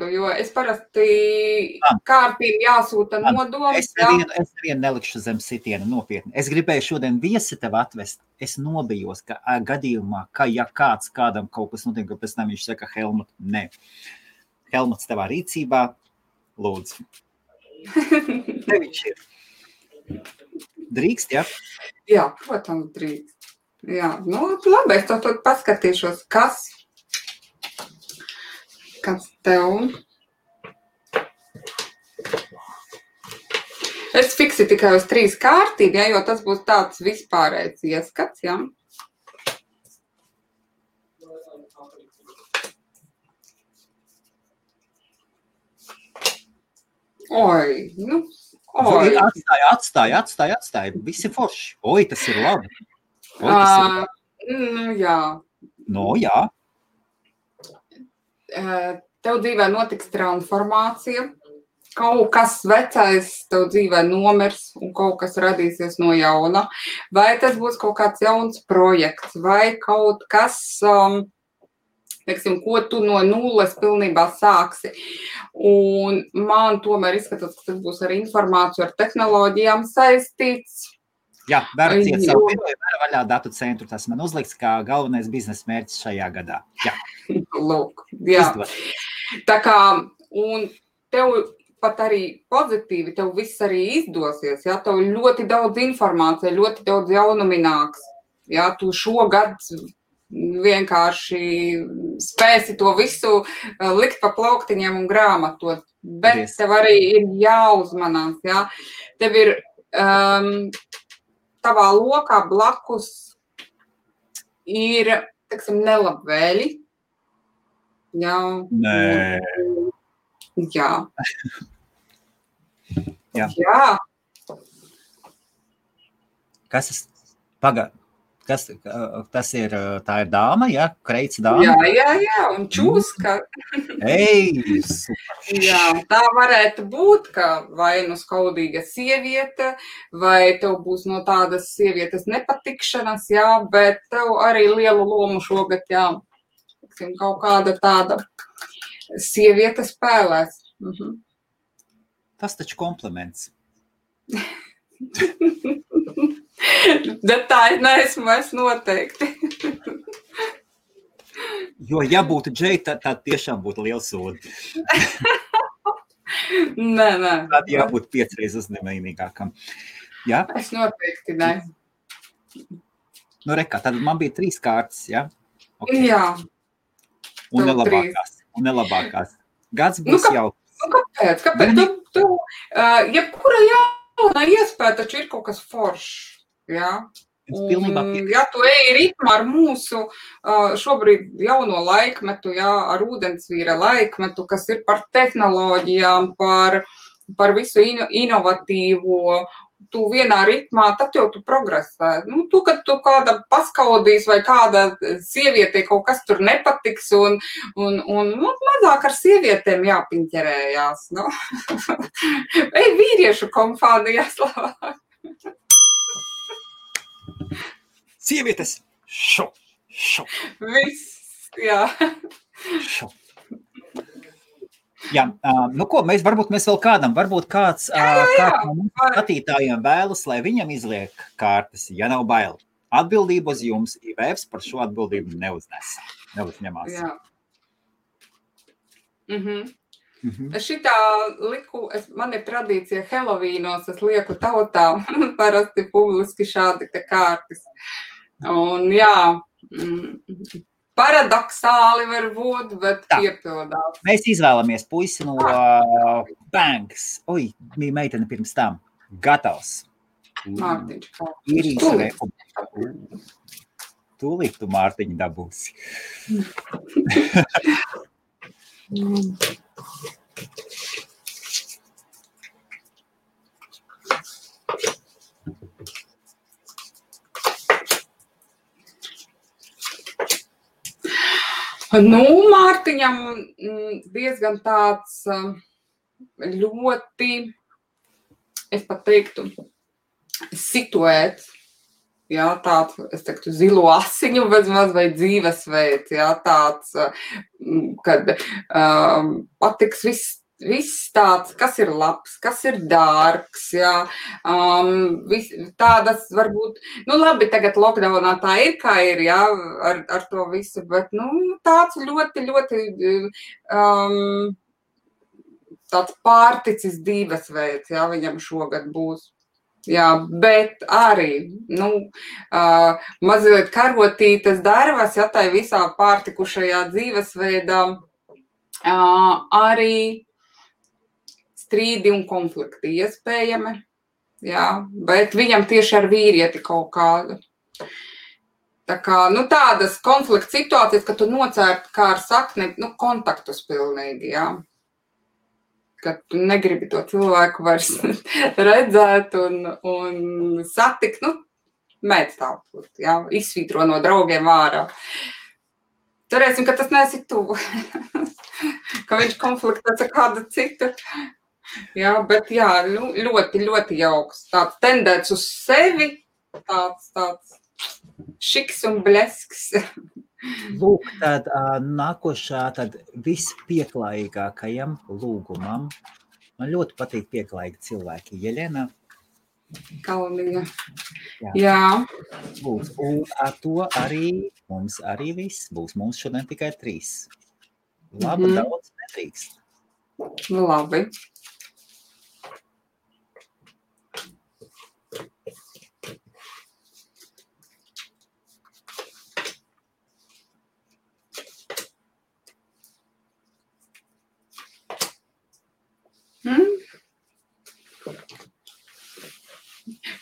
jo es parasti kārtīm jāsūta nodoms. Es nevienu nelikšu zem sitiena nopietni. Es gribēju šodien viesi tev atvest. Es nobijos, ka gadījumā, ka ja kādam kaut kas notiek, ka pēc tam viņš saka, Helmut, nē. Helmuts tavā rīcībā, lūdzu. Te viņš ir. Drīkst, ja? Jā, protams, drīkst. Jā, nu, labi, es to paskatīšos, kas tev. Es fiksi tikai uz 3 kārtību, ja, jo tas būs tāds vispārējs ieskats, ja. Oi, nu. Oi. Atstāj. Visi forši. Oi, tas ir labi. Jā. No, jā. Tev dzīvē notiks transformācija. Kaut kas vecais tev dzīvē nomirs un kaut kas radīsies no jauna. Vai tas būs kaut kāds jauns projekts vai kaut kas, teiksim, ko tu no nulles pilnībā sāksi. Un man tomēr izskatās, ka tas būs ar informāciju, ar tehnoloģijām saistīts. Jā, varu ciet savu video, varu vaļā datu centru. Tas man uzliks kā galvenais biznesa mērķis šajā gadā. Jā. Lūk, jā. Izdod. Tā kā, un tev pat arī pozitīvi, tev viss arī izdosies, jā, tev ļoti daudz informācija, ļoti daudz jaunumi nāks. Jā, tu šogad vienkārši spēsi to visu likt pa plauktiņiem un grāmatot, bet tev arī ir jāuzmanās, jā. Tev ir tavā lokā blakus ir, teiksim, nelabvēļi. Jā. Nē. Jā. Jā. Kas ir, tā ir dāma, ja? Kreits dāma? Jā, un čūska. Ei, jā, tā varētu būt, ka vai nu skaudīga sieviete, vai tev būs no tādas sievietes nepatikšanas, jā, bet tev arī lielu lomu šogad, jā, kaut kāda tāda sieviete spēlēs. Tas taču kompliments. Bet tā neesmu es noteikti. Jo, ja būtu Džeja, tad tiešām būtu liels sodi. Nē. Tad jābūt 5 reizes uzņēmīgākam. Jā? Es noteikti ne. Nu, rekā, tad man bija 3 kārtas, jā? Okay. Jā. Un nelabākās. Gads būs jau. Kāpēc? Jebkura jauna iespēja taču ir kaut kas foršs. Jā. Un, ja tu eji ritmā ar mūsu šobrīd jauno laikmetu, jā, ar ūdensvīra laikmetu, kas ir par tehnoloģijām, par visu inovatīvo, tu vienā ritmā, tad jau tu progresē. Nu, kad tu kāda paskaudīs vai kāda sieviete kaut kas tur nepatiks un mazāk ar sievietēm jāpiņķerējās. Nu. Ej vīriešu kompānijās labāk. Sievietes! Šo! Viss, jā. Šo. Jā, nu ko, varbūt mēs vēl varbūt kāds no mums skatītājiem vēlas, lai viņam izliek kārtas, ja nav bail. Atbildību uz jums, IVFs par šo atbildību neuzņemās. Jā. Es šitā liku, man ir tradīcija Helovīnos, es lieku tautā parasti publiski šādi te kārtas. Un jā, paradoxāli var būt, bet piepildās. Mēs izvēlamies puisi no Banks. Oi, bija meitene pirms tam. Gatavs. Mārtiņš. Tūlīt tu Mārtiņu dabūsi. Nu, Mārtiņam diezgan tāds ļoti, es pat teiktu, situēts jā, tāds, es teiktu, zilo asiņu vai dzīvesveids, jā, tāds, kad patiks viss tāds, kas ir labs, kas ir dārgs, jā, tādas varbūt, nu labi, tagad lockdownā tā ir, kā ir, jā, ar to visu, bet, nu, tāds ļoti, ļoti, tāds pārticis dzīvesveids, jā, viņam šogad būs. Jā, bet arī, nu, mazliet karotītas darvas, ja tai visā pārtikušajā dzīvesveidā, arī strīdi un konflikti iespējami, jā, bet viņam tieši ar vīrieti kaut kādu. Tā kā, nu, tādas konflikta situācijas, ka tu nocērt kā ar sakni, nu, kontaktus pilnīgi, jā. Ka tu negribi to cilvēku vairs redzēt un satikt, nu, mēdz tāpūt, jā, izsvītro no draugiem ārā. Cerēsim, ka tas neesi tu, ka viņš konfliktēs ar kādu citu. Jā, bet jā, ļoti, ļoti jauks. Tāds tendēts uz sevi, tāds šiks un blesks. Lūk, tad nākošā, tad vispieklājīgākajam lūgumam. Man ļoti patīk pieklājīgi cilvēki. Jelena. Kalniņa. Jā. Būs. Un ar to arī mums arī viss būs. Mums šodien tikai 3. Labi, daudz nedrīkst. Labi.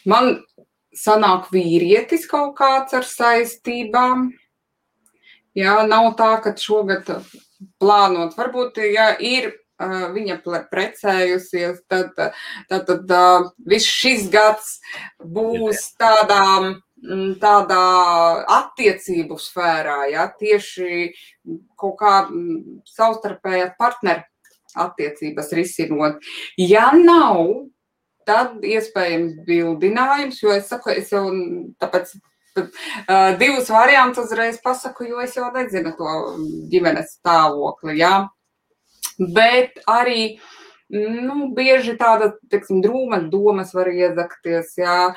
Man sanāk vīrietis kaut kāds ar saistībām. Jā, nav tā, ka šogad plānot. Varbūt, ja ir viņa precējusies, tad viss šis gads būs tādā attiecību sfērā, ja, tieši kaut kā savstarpējā partneru attiecības risinot. Ja nav, tad iespējams bildinājums, jo es saku, es jau tāpēc 2 variantus uzreiz pasaku, jo es jau nezinu to ģimenes stāvokli, jā. Bet arī, nu, bieži tāda, teiksim, drūmas domas var iezakties, jā,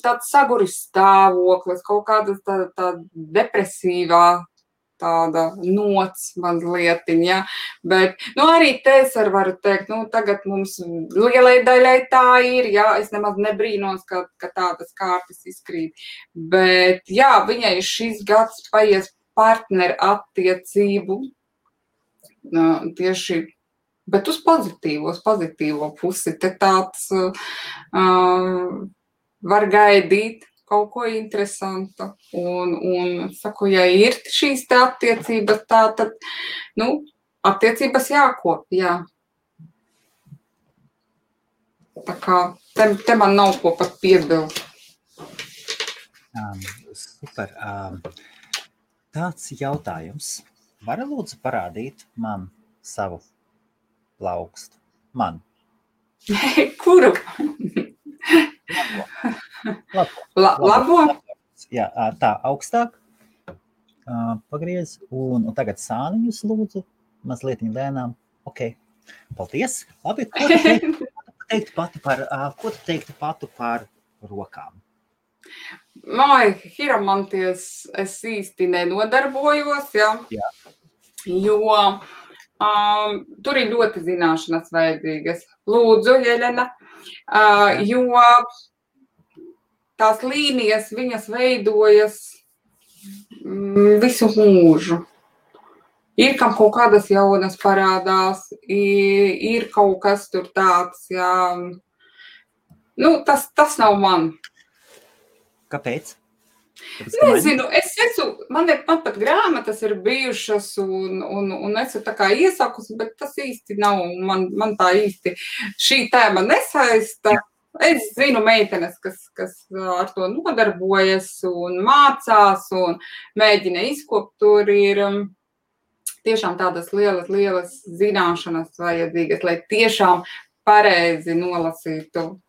tāds saguris stāvoklis, kaut kāda tā depresīvā tāda nots mazlietiņa, ja? Bet, nu, arī te es varu teikt, nu, tagad mums lielai daļai tā ir, jā, es nemaz nebrīnos, ka tādas kārtas izkrīt, bet, jā, viņai šis gads paies partneru attiecību, tieši, bet uz pozitīvo pusi, te tāds var gaidīt kaut ko interesantu. Un saku, ja ir šīs te attiecības tā, tad, nu, attiecības jākop, jā. Tā kā te man nav ko pat piebilst. Super. Tāds jautājums. Vari lūdzu parādīt man savu plaukstu? Man. Kuru? Labo? Jā, tā augstāk. Pagriez. Un tagad sāniņus lūdzu. Mazliet lēnām. Ok. Paldies. Labi. Ko tu teiktu pati par rokām? Hiromanties es īsti nenodarbojos, ja? Jā. Jo tur ir ļoti zināšanas vajadzīgas. Lūdzu, Jelena, jo tās līnijas, viņas veidojas visu mūžu. Ir kam kaut kādas jaunas parādās, ir kaut kas tur tāds, jā. Nu, tas nav man. Kāpēc? Nezinu, man pat grāmatas ir bijušas un esmu tā kā iesakusi, bet tas īsti nav, man tā īsti šī tēma nesaista. Es zinu meitenes, kas ar to nodarbojas un mācās un mēģina izkopt, tur ir tiešām tādas lielas zināšanas vajadzīgas, lai tiešām pareizi nolasītu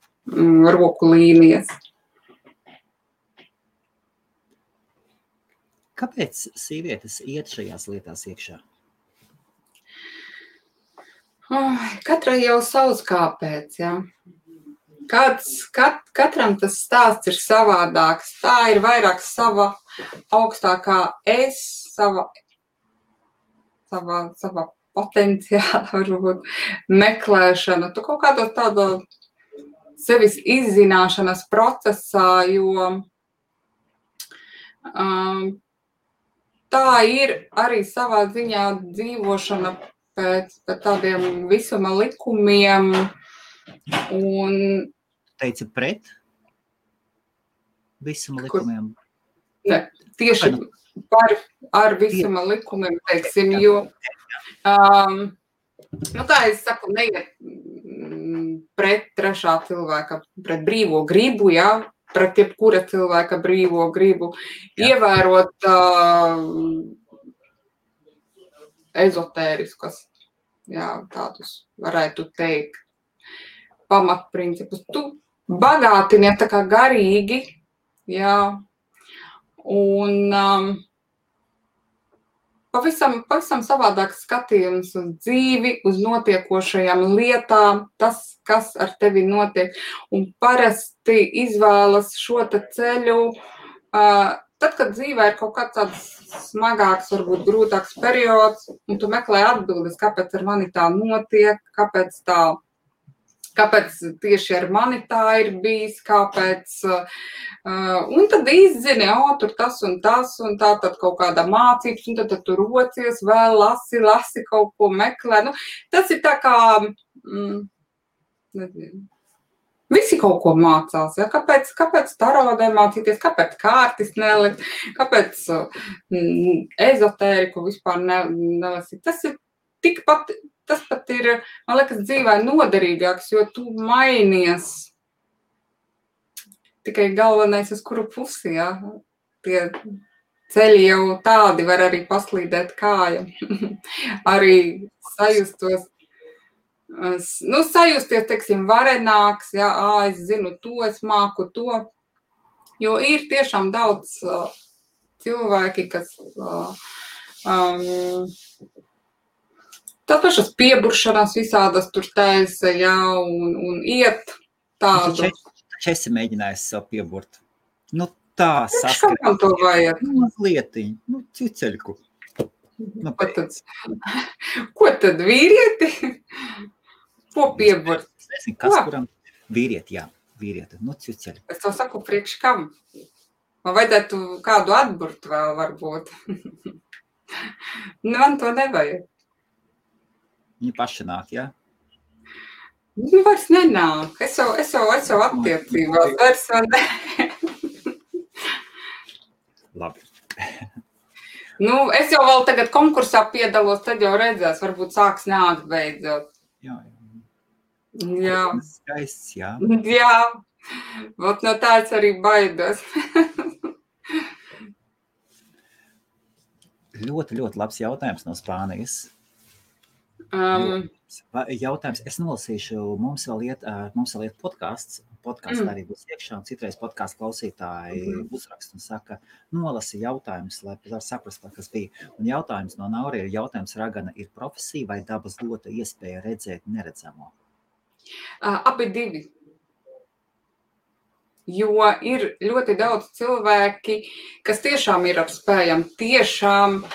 roku līnijas. Kāpēc sievietes iet šajās lietās iekšā? Katrai jau savs kāpēc, jā. Katram tas stāsts ir savādāks. Tā ir vairāk sava augstākā sava potenciāla, varbūt, meklēšana. Tu kaut kādā tādā sevis izzināšanas procesā, jo tā ir arī savā ziņā dzīvošana pēc tādiem visuma likumiem. Un teici pret visuma likumiem? Ne, tieši ar visuma likumiem, teiksim, jo, kā es saku, neiet pret trešā cilvēka, pret brīvo gribu, jā, pret jebkura cilvēka brīvo gribu, ievērot ezotēriskas, jā, tādus varētu teikt, pamatprincipus. Tu bagātini tā kā garīgi, jā, un pavisam savādāks skatījums uz dzīvi, uz notiekošajām lietām, tas, kas ar tevi notiek, un parasti izvēlas šo te ceļu, tad, kad dzīvē ir kaut kāds tāds smagāks, varbūt grūtāks periods, un tu meklē atbildes, kāpēc ar mani tā notiek, kāpēc tieši ar mani tā ir bijis, kāpēc, un tad izzini, tur tas un tā tad kaut kāda mācības, un tad tu rocies, vēl lasi kaut ko meklē. Nu, tas ir tā kā, nezinu, visi kaut ko mācās, ja? Kāpēc tarodē mācīties, kāpēc kārtis nelikt, kāpēc ezotēriku vispār nelasīt. Tas pat ir, man liekas, dzīvē noderīgāks, jo tu mainies. Tikai galvenais, uz kuru pusi, jā. Tie ceļi jau tādi var arī paslīdēt kāja. Arī sajusties, teiksim, varenāks, jā, es zinu to, es māku to. Jo ir tiešām daudz cilvēki, kas tā pašas pieburšanās visādas tur taisa, jā, un iet tādu. Taču esi mēģinājis sev pieburt. Nu tā saskarēt. Kam to vajag? Mazlietiņ, ciceļku. Ko tad vīrieti? Ko pieburt? Es nezinu, kas kuram vīrieti, jā, vīrieti, ciceļku. Es to saku priekš kam? Man vajadzētu kādu atburt vēl varbūt. Man to nevajag. Viņi paši nāk, jā? Nu, vairs nenāk. Es jau attiecībās. Vairs vēl ne. Labi. Es jau vēl tagad konkursā piedalos, tad jau redzēs, varbūt sāks nākt beidzot. Jā. Skaists, jā. Jā. Vot no tā es arī baidos. Ļoti, ļoti labs jautājums no Spānijas. Jautājums, es nolasīšu, mums vēl iet podcasts arī būs iekšā, un citreiz podcasts klausītāji uzrakst un saka, nolasi jautājumus, lai var saprast, kas bija. Un jautājums no Nauri ir, ragana ir profesija vai dabas dota iespēja redzēt neredzamo? Abi divi. Jo ir ļoti daudz cilvēki, kas tiešām ir ar spējām, tiešām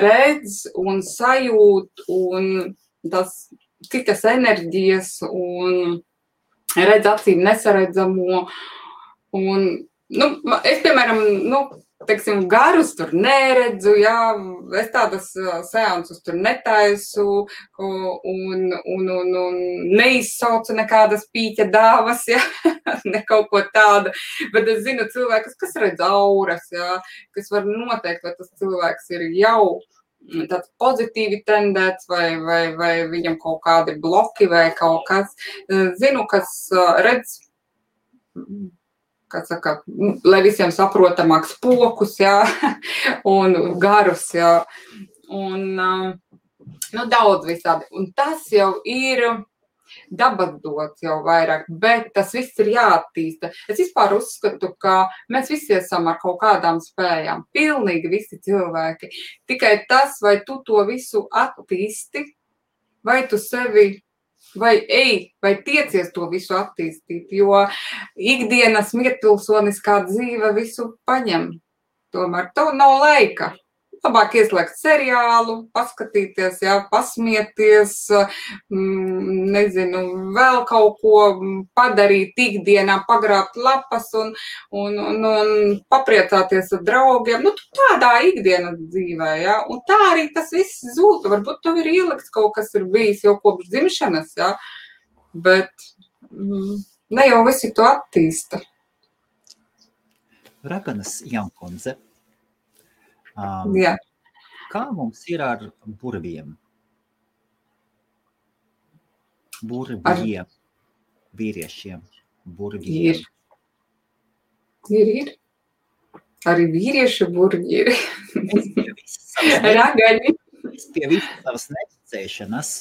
redz un sajūt un tas citas enerģijas un redz acīm nesaredzamo. Un, es, piemēram, teiksim, garus tur neredzu, jā, es tādas seansus tur netaisu un neizsaucu nekādas pīķa dāvas, jā, ne kaut ko tādu, bet es zinu cilvēkus, kas redz auras, jā, kas var noteikt, vai tas cilvēks ir jau tāds pozitīvi tendēts vai viņam kaut kādi bloki vai kaut kas. Zinu, kas redz, kā saka, lai visiem saprotamāks pokus, jā, un garus, jā, un daudz visādi. Un tas jau ir, dabas dots jau vairāk, bet tas viss ir jāattīsta. Es vispār uzskatu, ka mēs visi esam ar kaut kādām spējām, pilnīgi visi cilvēki. Tikai tas, vai tu to visu attīsti, vai tu sevi, vai tiecies to visu attīstīt, jo ikdienas mierpilsoniskā dzīve visu paņem. Tomēr tev nav laika. Labāk ieslēgt seriālu, paskatīties, pasmieties, nezinu, vēl kaut ko padarīt ikdienā, pagrābt lapas un papriecāties ar draugiem. Nu, tādā ikdienas dzīvē, un tā arī tas viss zūd. Varbūt tev ir ielikts kaut kas ir bijis jau kopš dzimšanas, bet ne jau visi to attīsta. Raganas Jankundze. Jā. Kā mums ir ar burviem? Vīriešiem. Burviem. Ir. Arī vīriešu burvi ir. Ragaņi. Es pie visas savas neticēšanas.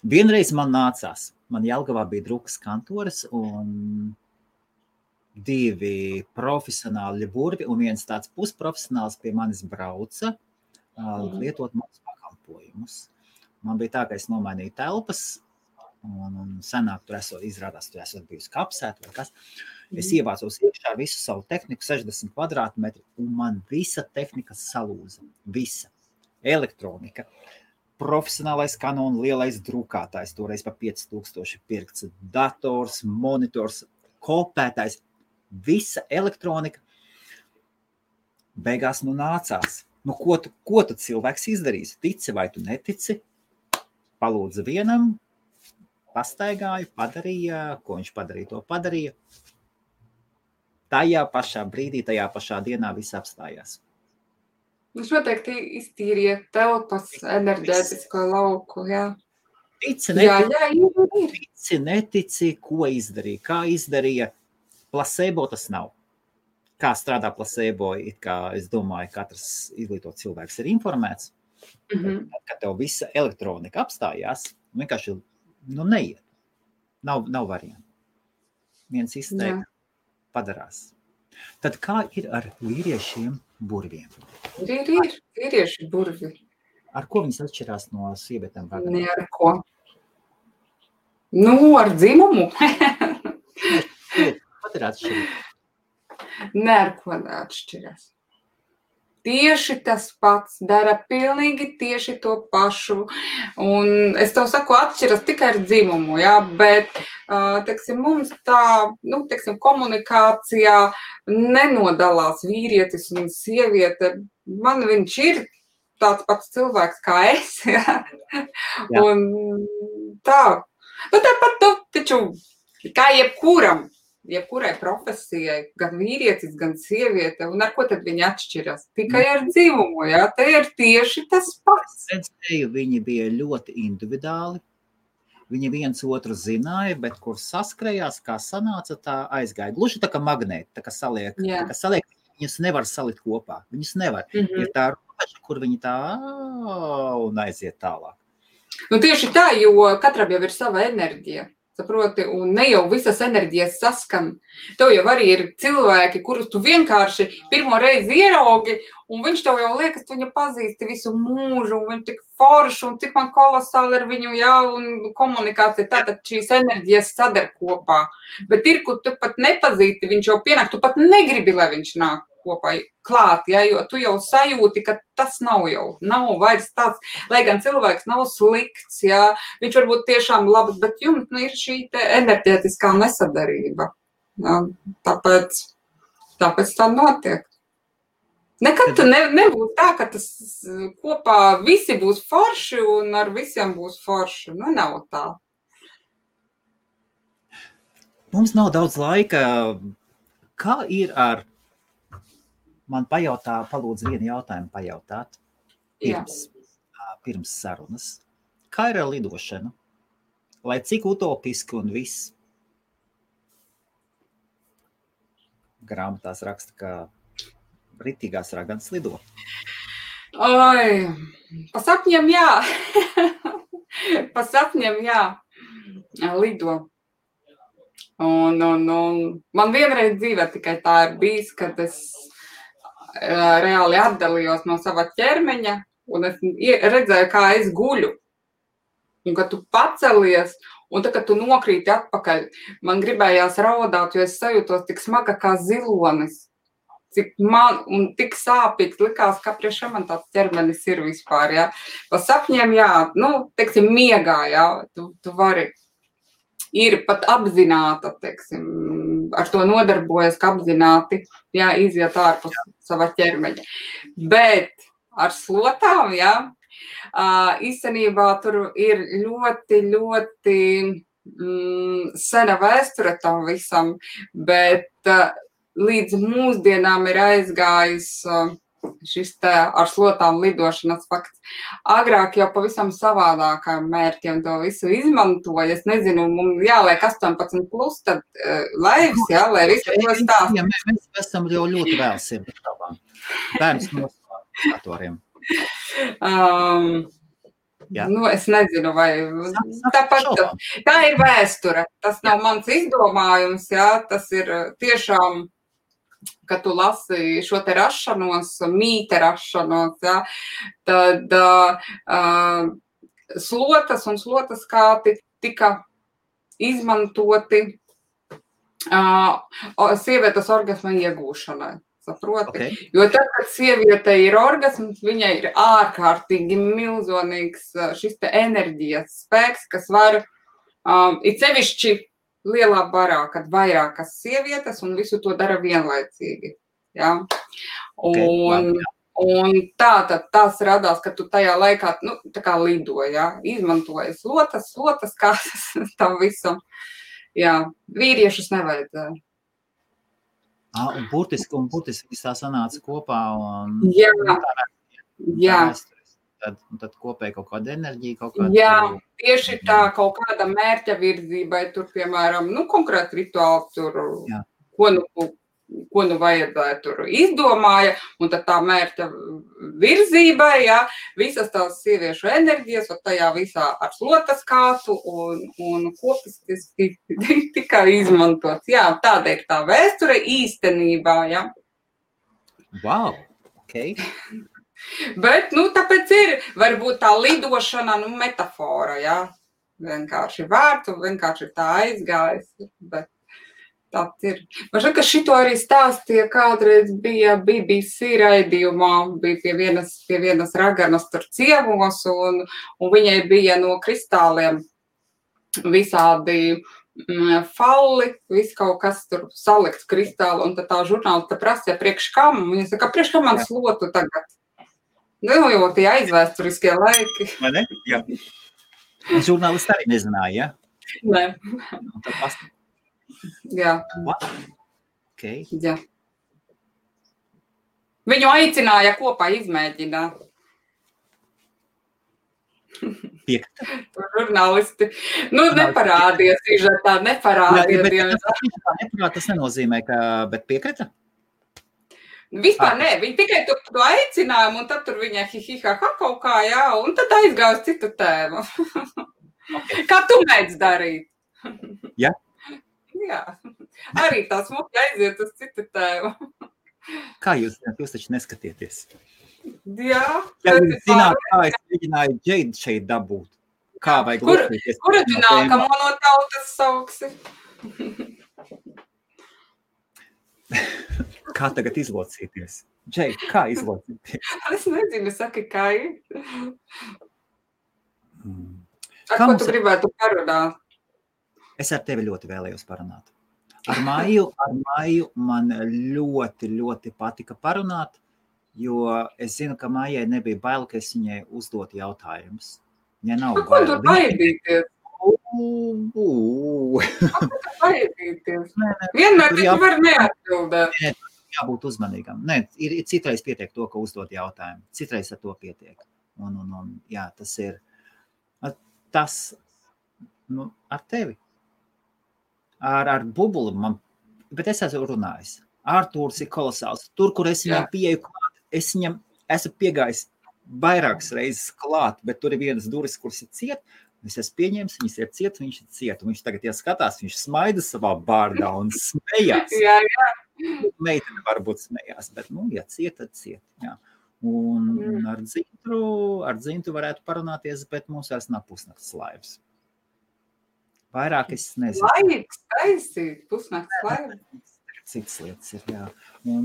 Vienreiz man nācās. Man Jelgavā bija drukas kantores un 2 profesionāli burvi un viens tāds pusprofesionāls pie manis brauca lietot manas pakalpojumus. Man bija tā, ka es nomainīju telpas un senāk tur izrādās, tur esot bijusi kapsēta vai kas. Es ievācos iekšā visu savu tehniku, 60 kvadrātmetri, un man visa tehnika salūza. Visa. Elektronika. Profesionālais Canon lielais drukātājs, toreiz pa 5000 pirkts, dators, monitors, kopētājs. Visa elektronika beigās nācās. Ko tu cilvēks izdarīs? Tici vai tu netici? Palūdza vienam, pastaigāju, padarīja, ko viņš padarīja, to padarīja. Tajā pašā brīdī, tajā pašā dienā viss apstājās. Viņš noteikti iztīrīja telpas enerģētisko lauku, Tici, netici, ko izdarīja, kā izdarīja. Placebo tas nav. Kā strādā placebo, it kā es domāju, katrs izglītots cilvēks ir informēts. Kad tev visa elektronika apstājās, vienkārši neiet. Nav variantu. Viens izteikti padarās. Tad kā ir ar vīriešiem burviem? Ir vīrieši burvi. Ar ko viņas atšķirās no sievietēm? Ne ar ko. Ar dzimumu. Ir atšķirība? Ne ar ko neatšķiras. Tieši tas pats, dara pilnīgi tieši to pašu. Un es tev saku, atšķiras tikai ar dzimumu, bet, mums tā, komunikācijā nenodalās vīrietis un sieviete. Man viņš ir tāds pats cilvēks kā es, Un tā. Tāpat, taču, kā jebkurai profesijai, gan vīrietis, gan sieviete, un ar ko tad viņi atšķiras? Tikai ar dzimumu, te ir tieši tas pats. Viņi bija ļoti individuāli, viņi viens otru zināja, bet kur saskrējās, kā sanāca, tā aizgāja. Gluži tā kā magnēti, tā kā saliek, viņus nevar salikt kopā, viņus nevar. Ir tā robeža, kur viņi tā un aiziet tālāk. Tieši tā, jo katram jau ir sava enerģija. Saproti, un ne jau visas enerģijas saskan. Tev jau arī ir cilvēki, kurus tu vienkārši pirmo reizi ieraugi, un viņš tev jau liekas, tu viņu pazīsti visu mūžu, un viņš tik forši, un cik man kolosāli ar viņu, un komunikācija, tātad šīs enerģijas sadar kopā. Bet ir, kur tu pat nepazīsti, viņš jau pienāk, tu pat negribi, lai viņš nāk kopā klāt, jo tu jau sajūti, ka tas nav vairs tāds, lai gan cilvēks nav slikts, viņš varbūt tiešām labs, bet jums ir šī te enerģētiskā nesadarība. Tāpēc tā notiek. Nekad tu nebūs tā, ka tas kopā visi būs forši un ar visiem būs forši. Nav tā. Mums nav daudz laika. Kā ir ar... Man palūdz vienu jautājumu pajautāt pirms sarunas. Kā ir ar lidošanu? Lai cik utopiski un viss? Grāmatās raksta, ka ritīgās raganas lido. Pa sapņiem, Pa sapņiem, jā, lido. Un man vienreiz dzīvē tikai tā ir bijis, kad es reāli atdalījos no sava ķermeņa, un es redzēju, kā es guļu. Un kad tu pacelies, un tad, kad tu nokrīti atpakaļ, man gribējās raudāt, jo es sajūtos tik smaga kā zilonis. Cik man, un tik sāpīgs likās, ka priekšā man tāds ķermenis ir vispār, jā. Pa sapņiem, jā, teiksim, miegā, jā, tu vari, ir pat apzināta, teiksim, ar to nodarbojas, ka apzināti, jā, iziet ārpus sava ķermeņa. Bet ar slotām, jā, īstenībā tur ir ļoti, ļoti sena vēsture tam visam, bet līdz mūsdienām ir aizgājis šis te ar slotām lidošanas fakts. Agrāk jau pavisam savādākām mērķiem to visu izmantoja. Es nezinu, mums jāliek 18+, tad laivs, jā, lai visu to stāst. Jā, mēs esam jau ļoti vēl sirdabām. Bērns noslēgatoriem. Es nezinu, vai tāpat tā ir vēsture. Tas nav mans izdomājums, jā, tas ir tiešām, kad tu lasi šo te rašanos, mīte rašanos, jā, tad slotas un slotas kāti tika izmantoti sievietes orgasma iegūšanai. Saproti? Okay. Jo tad, kad sieviete ir orgasms, viņai ir ārkārtīgi milzonīgs šis te enerģijas spēks, kas var it sevišķi lielā barā, kad vairākas sievietes un visu to dara vienlaicīgi. Ja? Un tās radās, ka tu tajā laikā, tā kā lido, ja? Izmantoja slotas kādas tam visam. Jā, vīriešus nevajadzēja. Un burtiski viss tā sanāca kopā. Jā. Tad kopēja kaut kāda enerģija, Jā, tieši tā kaut kāda mērķa virzībai, tur, piemēram, konkrēti rituāli tur, ko vajadzēja tur izdomāja, un tad tā mērķa virzībai, jā, visas tās sieviešu enerģijas, un tajā visā ar slotas kātu un kopistiski tikai izmantots. Jā, tāda ir tā vēsture īstenībā, jā. Wow, ok. Bet, tāpēc ir, varbūt tā lidošana, metafora, jā. Vienkārši vārtu, vienkārši tā aizgājis, bet tāds ir. Man šķiet, ka šito arī stāstīja kādreiz bija BBC raidījumā, bija pie vienas raganas tur ciemos, un viņai bija no kristāliem visādi falli, viss kaut kas tur salikts kristāli, un tad tā žurnālista prasīja priekš kam, un viņa saka, priekš kam man slotu tagad? Jo tie aizvēsturiskie laiki. Vai ne? Jā. Žurnālisti arī nezināja, ja? Nē. Jā. Okay. Jā. Viņu aicināja kopā izmēģināt. Piekrita? Žurnālisti. Neparādies, sižetā, neparādies. Tas nenozīmē, ka, bet piekrita? Vispār nē, viņi tikai to aicinājumu, un tad tur viņai hi-hi-ha-ha kaut kā, jā, un tad aizgāja uz citu tēmu. Okay. Kā tu mēdz darīt? Jā? Jā. Arī tā smuki aiziet uz citu tēmu. Kā jūs taču neskatieties? Jā. Ja jūs zināt, kā es mēģināju Džeidu šeit dabūt? Kā vajag lūkties? Kura tu nākamo no tautas sauksi? Kā tagad izlocīties? Džei, kā izlocīties? Es nezinu, saki, kā ir. Ar ko tu gribētu parunāt? Es ar tevi ļoti vēlējos parunāt. Ar Maiju man ļoti, ļoti patika parunāt, jo es zinu, ka Maijai nebija bail, ka es viņai uzdot jautājumus. Ja nav bail. Ko tur baidīties? Kā tur baidīties? Vienmēr tu var neatbildēt. Jābūt uzmanīgam. Nē, ir citreiz pietiek to, ka uzdot jautājumu. Citreiz ar to pietiek. Un jā, tas ir tas ar tevi. Ar bubuli bet es esmu runājis. Artūrs ir kolosāls. Tur, kur es viņam pieeju klāt, es viņam esmu piegājis vairākas reizes klāt, bet tur ir vienas durvis, kuras ir ciet, Es esmu pieņēmis, viņas ir ciet, viņš ir ciet. Un viņš tagad ieskatās, viņš smaida savā bārdā un smējās. Jā. Meitene varbūt smējās, bet, ja ciet, tad ciet. Jā. Un ar Dzintu varētu parunāties, bet mums vairs nav pusnakts laivas. Vairāk es nezinu. Laiks taisīt, pusnakts laivas. Citas lietas ir, jā.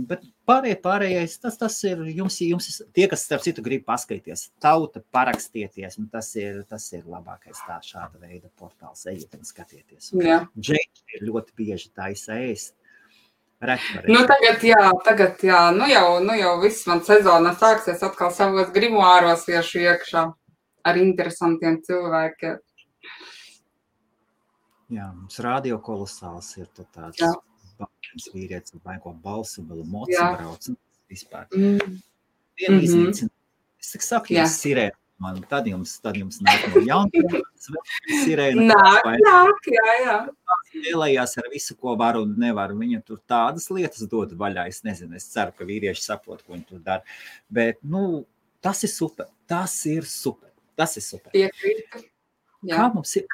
Bet pārējais, tas ir, jums tie, kas starp citu grib paskatīties, tauta parakstieties, un tas ir labākais šāda veida portāls, ejiet un skatieties. Džeiki ir ļoti bieži taisa ēst. Tagad jā, nu jau viss man sezona sāksies atkal savos grimoāros iešu iekšā ar interesantiem cilvēkiem. Jā, mums radio kolosāls ir tāds. Jā. Vīrietis vai ko balsu, vēl moci brauc vispār. Vienu iznīcina. Es saku, ja sirēna man, tad jums nāk no jaunības, sirēna. Nāk, jā. Lielējās ar visu, ko var un nevar. Viņa tur tādas lietas dod vaļā. Es nezinu, es ceru, ka vīrieši saprot, ko viņi tur dara. Bet, tas ir super. Tas ir super. Piekrītu. Kā mums ir?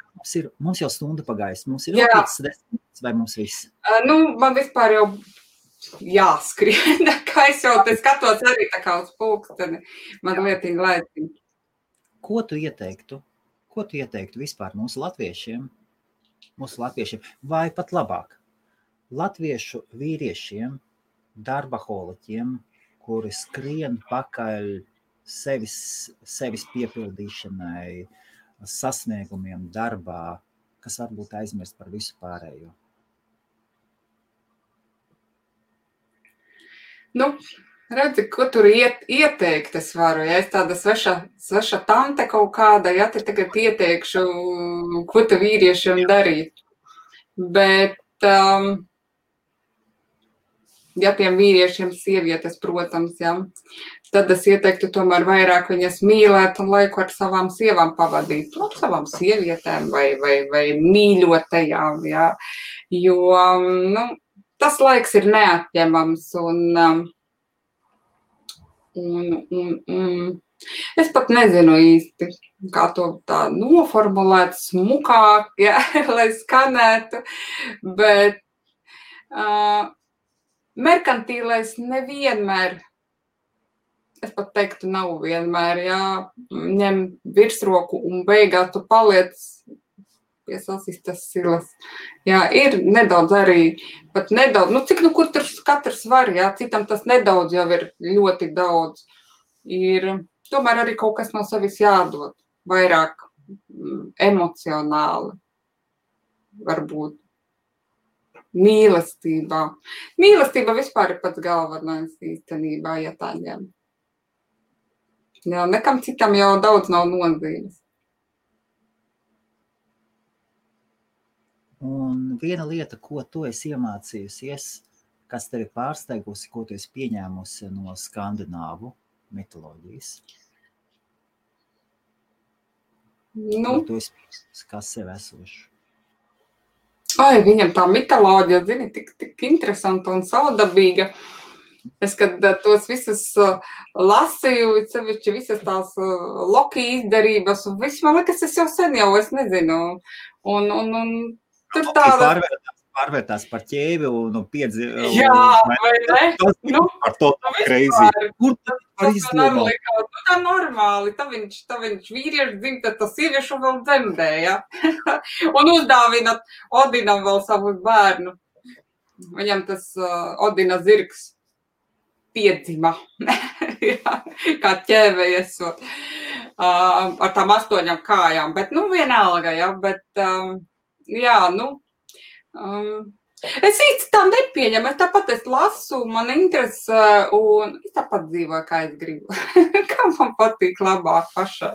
Mums jau stunda pagājis. Mums ir 5-10 vai mums viss? Man vispār jau jāskrien. Kā es jau te skatos arī tā kā uz pulksteni. Man lietiņa laiciņa. Ko tu ieteiktu vispār mūsu latviešiem? Vai pat labāk? Latviešu vīriešiem, darbaholiķiem, kuri skrien pakaļ sevis piepildīšanai, sasniegumiem darbā, kas varbūt aizmirst par visu pārējo. Redzi, ko tur ieteikt es varu, ja es tāda sveša tante kaut kāda, ja te tagad ieteikšu, ko te vīriešiem darīt. Bet, ja tiem vīriešiem sievietes, protams, ja, tad es ieteiktu tomēr vairāk viņas mīlēt un laiku ar savām sievām pavadīt. Savām sievietēm vai mīļotajām, ja, jo, tas laiks ir neatņemams un es pat nezinu īsti, kā to tā noformulēt smukāk, ja, lai skanētu, bet merkantīlais nevienmēr, es pat teiktu, nav vienmēr, jā, ņem virsroku un beigās tu paliec pie sasistas silas. Jā, ir nedaudz arī, pat nedaudz, cik kur tur katrs var, jā, citam tas nedaudz jau ir ļoti daudz. Ir tomēr arī kaut kas no sevis jādod, vairāk emocionāli, varbūt. Mīlestībā. Mīlestība vispār ir pats galvenais īstenībā, ja tā ņem. Jā, nekam citam jau daudz nav nozīmes. Un viena lieta, ko tu esi iemācījusies, kas tevi pārsteigusi, ko tu esi pieņēmusi no skandināvu mitoloģijas? Ko tu esi pieņēmusi, kā sev esošu? Viņam tā mitoloģija, zini, tik interesanta un saudabīga. Es, kad tos visus lasīju, sevišķi visas tās Loki izdarības, un viss, man liekas, es jau sen jau, es nezinu. Un tur tāda... Pārvērtās par ķēvi un piedzi... Jā, vai ne? Par to crazy. Kur tā izdomā? Tā normāli. Tā viņš vīrieši dzimta, tas sieviešu vēl dzemdē, ja? Un uzdāvina Odinam vēl savu bērnu. Viņam tas Odina zirgs piedzima. Kā ķēve iesot. Ar tām 8 kājām. Bet, vienalga, ja? Bet, jā, es īsti tā nepieņemu, es tāpat lasu, man interesē, un es tāpat dzīvoju, kā es gribu, kā man patīk labāk pašai.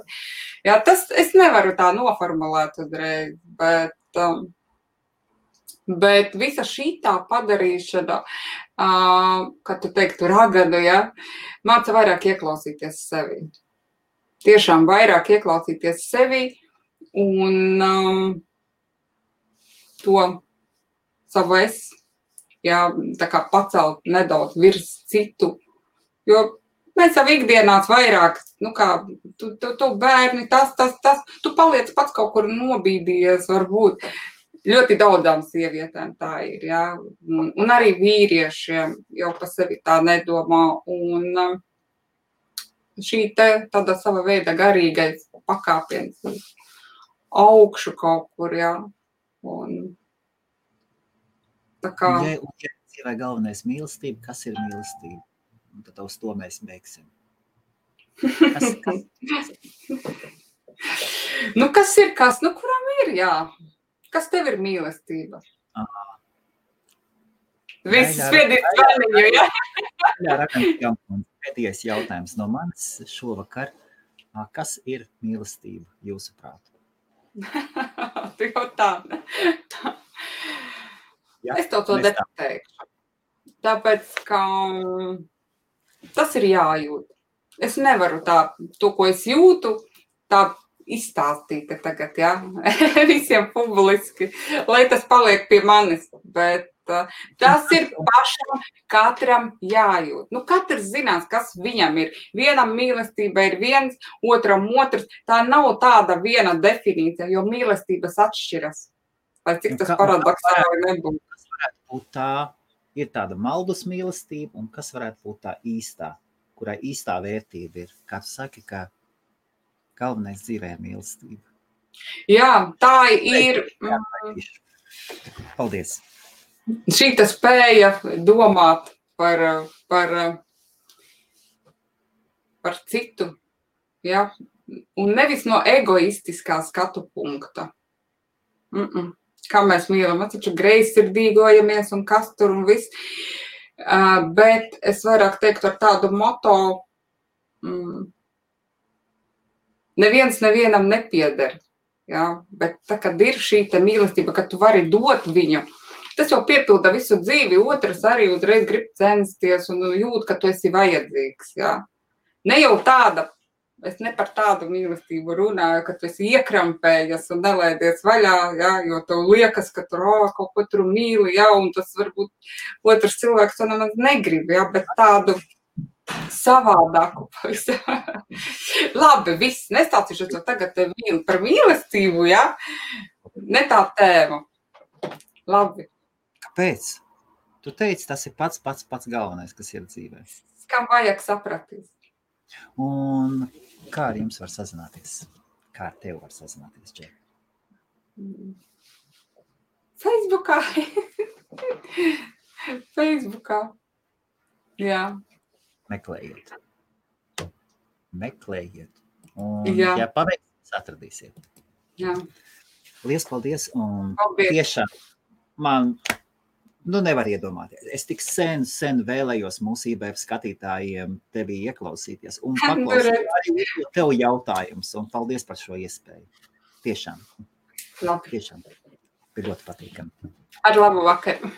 Jā, tas es nevaru tā noformulēt uzreiz, bet visa šitā padarīšana, kā tu teiktu, raganu, ja, māca vairāk ieklausīties sevi. Tiešām vairāk ieklausīties sevi un to savu jā, tā kā pacelt nedaudz virs citu, jo Mēs jau ikdienās vairāk, tu bērni, tas, tu paliec pats kaut kur nobīdījies, varbūt. Ļoti daudzām sievietēm tā ir, jā. Un arī vīriešiem jau pa sevi tā nedomā. Un šī tāda sava veida garīgais pakāpiens augšu kaut kur, jā. Un tā kā... Ja dzīvē galvenais mīlestība, kas ir mīlestība? Un tad uz to mēs beigsim. Kas ir kas? Kuram ir, jā. Kas tev ir mīlestība? Viss spiedīt zvaniņu, jā? Jā, pēdējais jautājums no manis šovakar. Kas ir mīlestība jūsuprāt? Tu jau tā. Es tev to nepateikšu. Tāpēc, ka tas ir jājūt. Es nevaru to, ko es jūtu, tā izstāstīt tagad, jā, visiem publiski, lai tas paliek pie manis, bet tas ir pašam katram jājūt. Katrs zinās, kas viņam ir. Vienam mīlestība ir viens, otram otrs. Tā nav tāda viena definīcija, jo mīlestības atšķiras. Lai cik tas paradoksāli nebūtu. Kas varētu būt tā, ir tāda maldus mīlestība, un kas varētu būt tā īstā, kurai īstā vērtība ir? Kā tu saki, ka galvenais dzīvē ir mīlestība. Jā, tā ir. Paldies. Šīta spēja domāt par citu, jā, un nevis no egoistiskā skatu punkta. Kā mēs mīlam, mēs taču greizsirdīgojamies un kas tur un viss, bet es vairāk teiktu ar tādu moto, neviens nevienam nepieder, jā, bet tā, kad ir šī mīlestība, ka tu vari dot viņu, tas jau piepilda visu dzīvi, otrs arī uzreiz grib censties un jūt, ka tu esi vajadzīgs, jā. Ne jau tāda, es ne par tādu mīlestību runāju, ka tu esi iekrampējies un nelaidies vaļā, jā, jo tev liekas, ka tur kaut ko tur mīli, jā, un tas varbūt otrs cilvēks to nemaz negrib, jā, bet tādu savādāku. Labi, viss, nestāstīšu to tagad par mīlestību, jā? Ne tā tēma. Labi. Kāpēc? Tu teici, tas ir pats galvenais, kas ir dzīvē. Kam vajag sapratīt? Un kā ar jums var sazināties? Kā ar tev var sazināties, Džek? Facebookā. Facebookā. Jā. Meklējiet. Un, ja paveiksiet, atradīsiet. Jā. Liels paldies. Un tiešām man, nevar iedomāties. Es tik sen vēlējos mūsu IBF skatītājiem tevi ieklausīties un paklausīt arī tev jautājums. Un paldies par šo iespēju. Tiešām. Labi. Tiešām. Bija ļoti patīkami. Ar labu vakaru.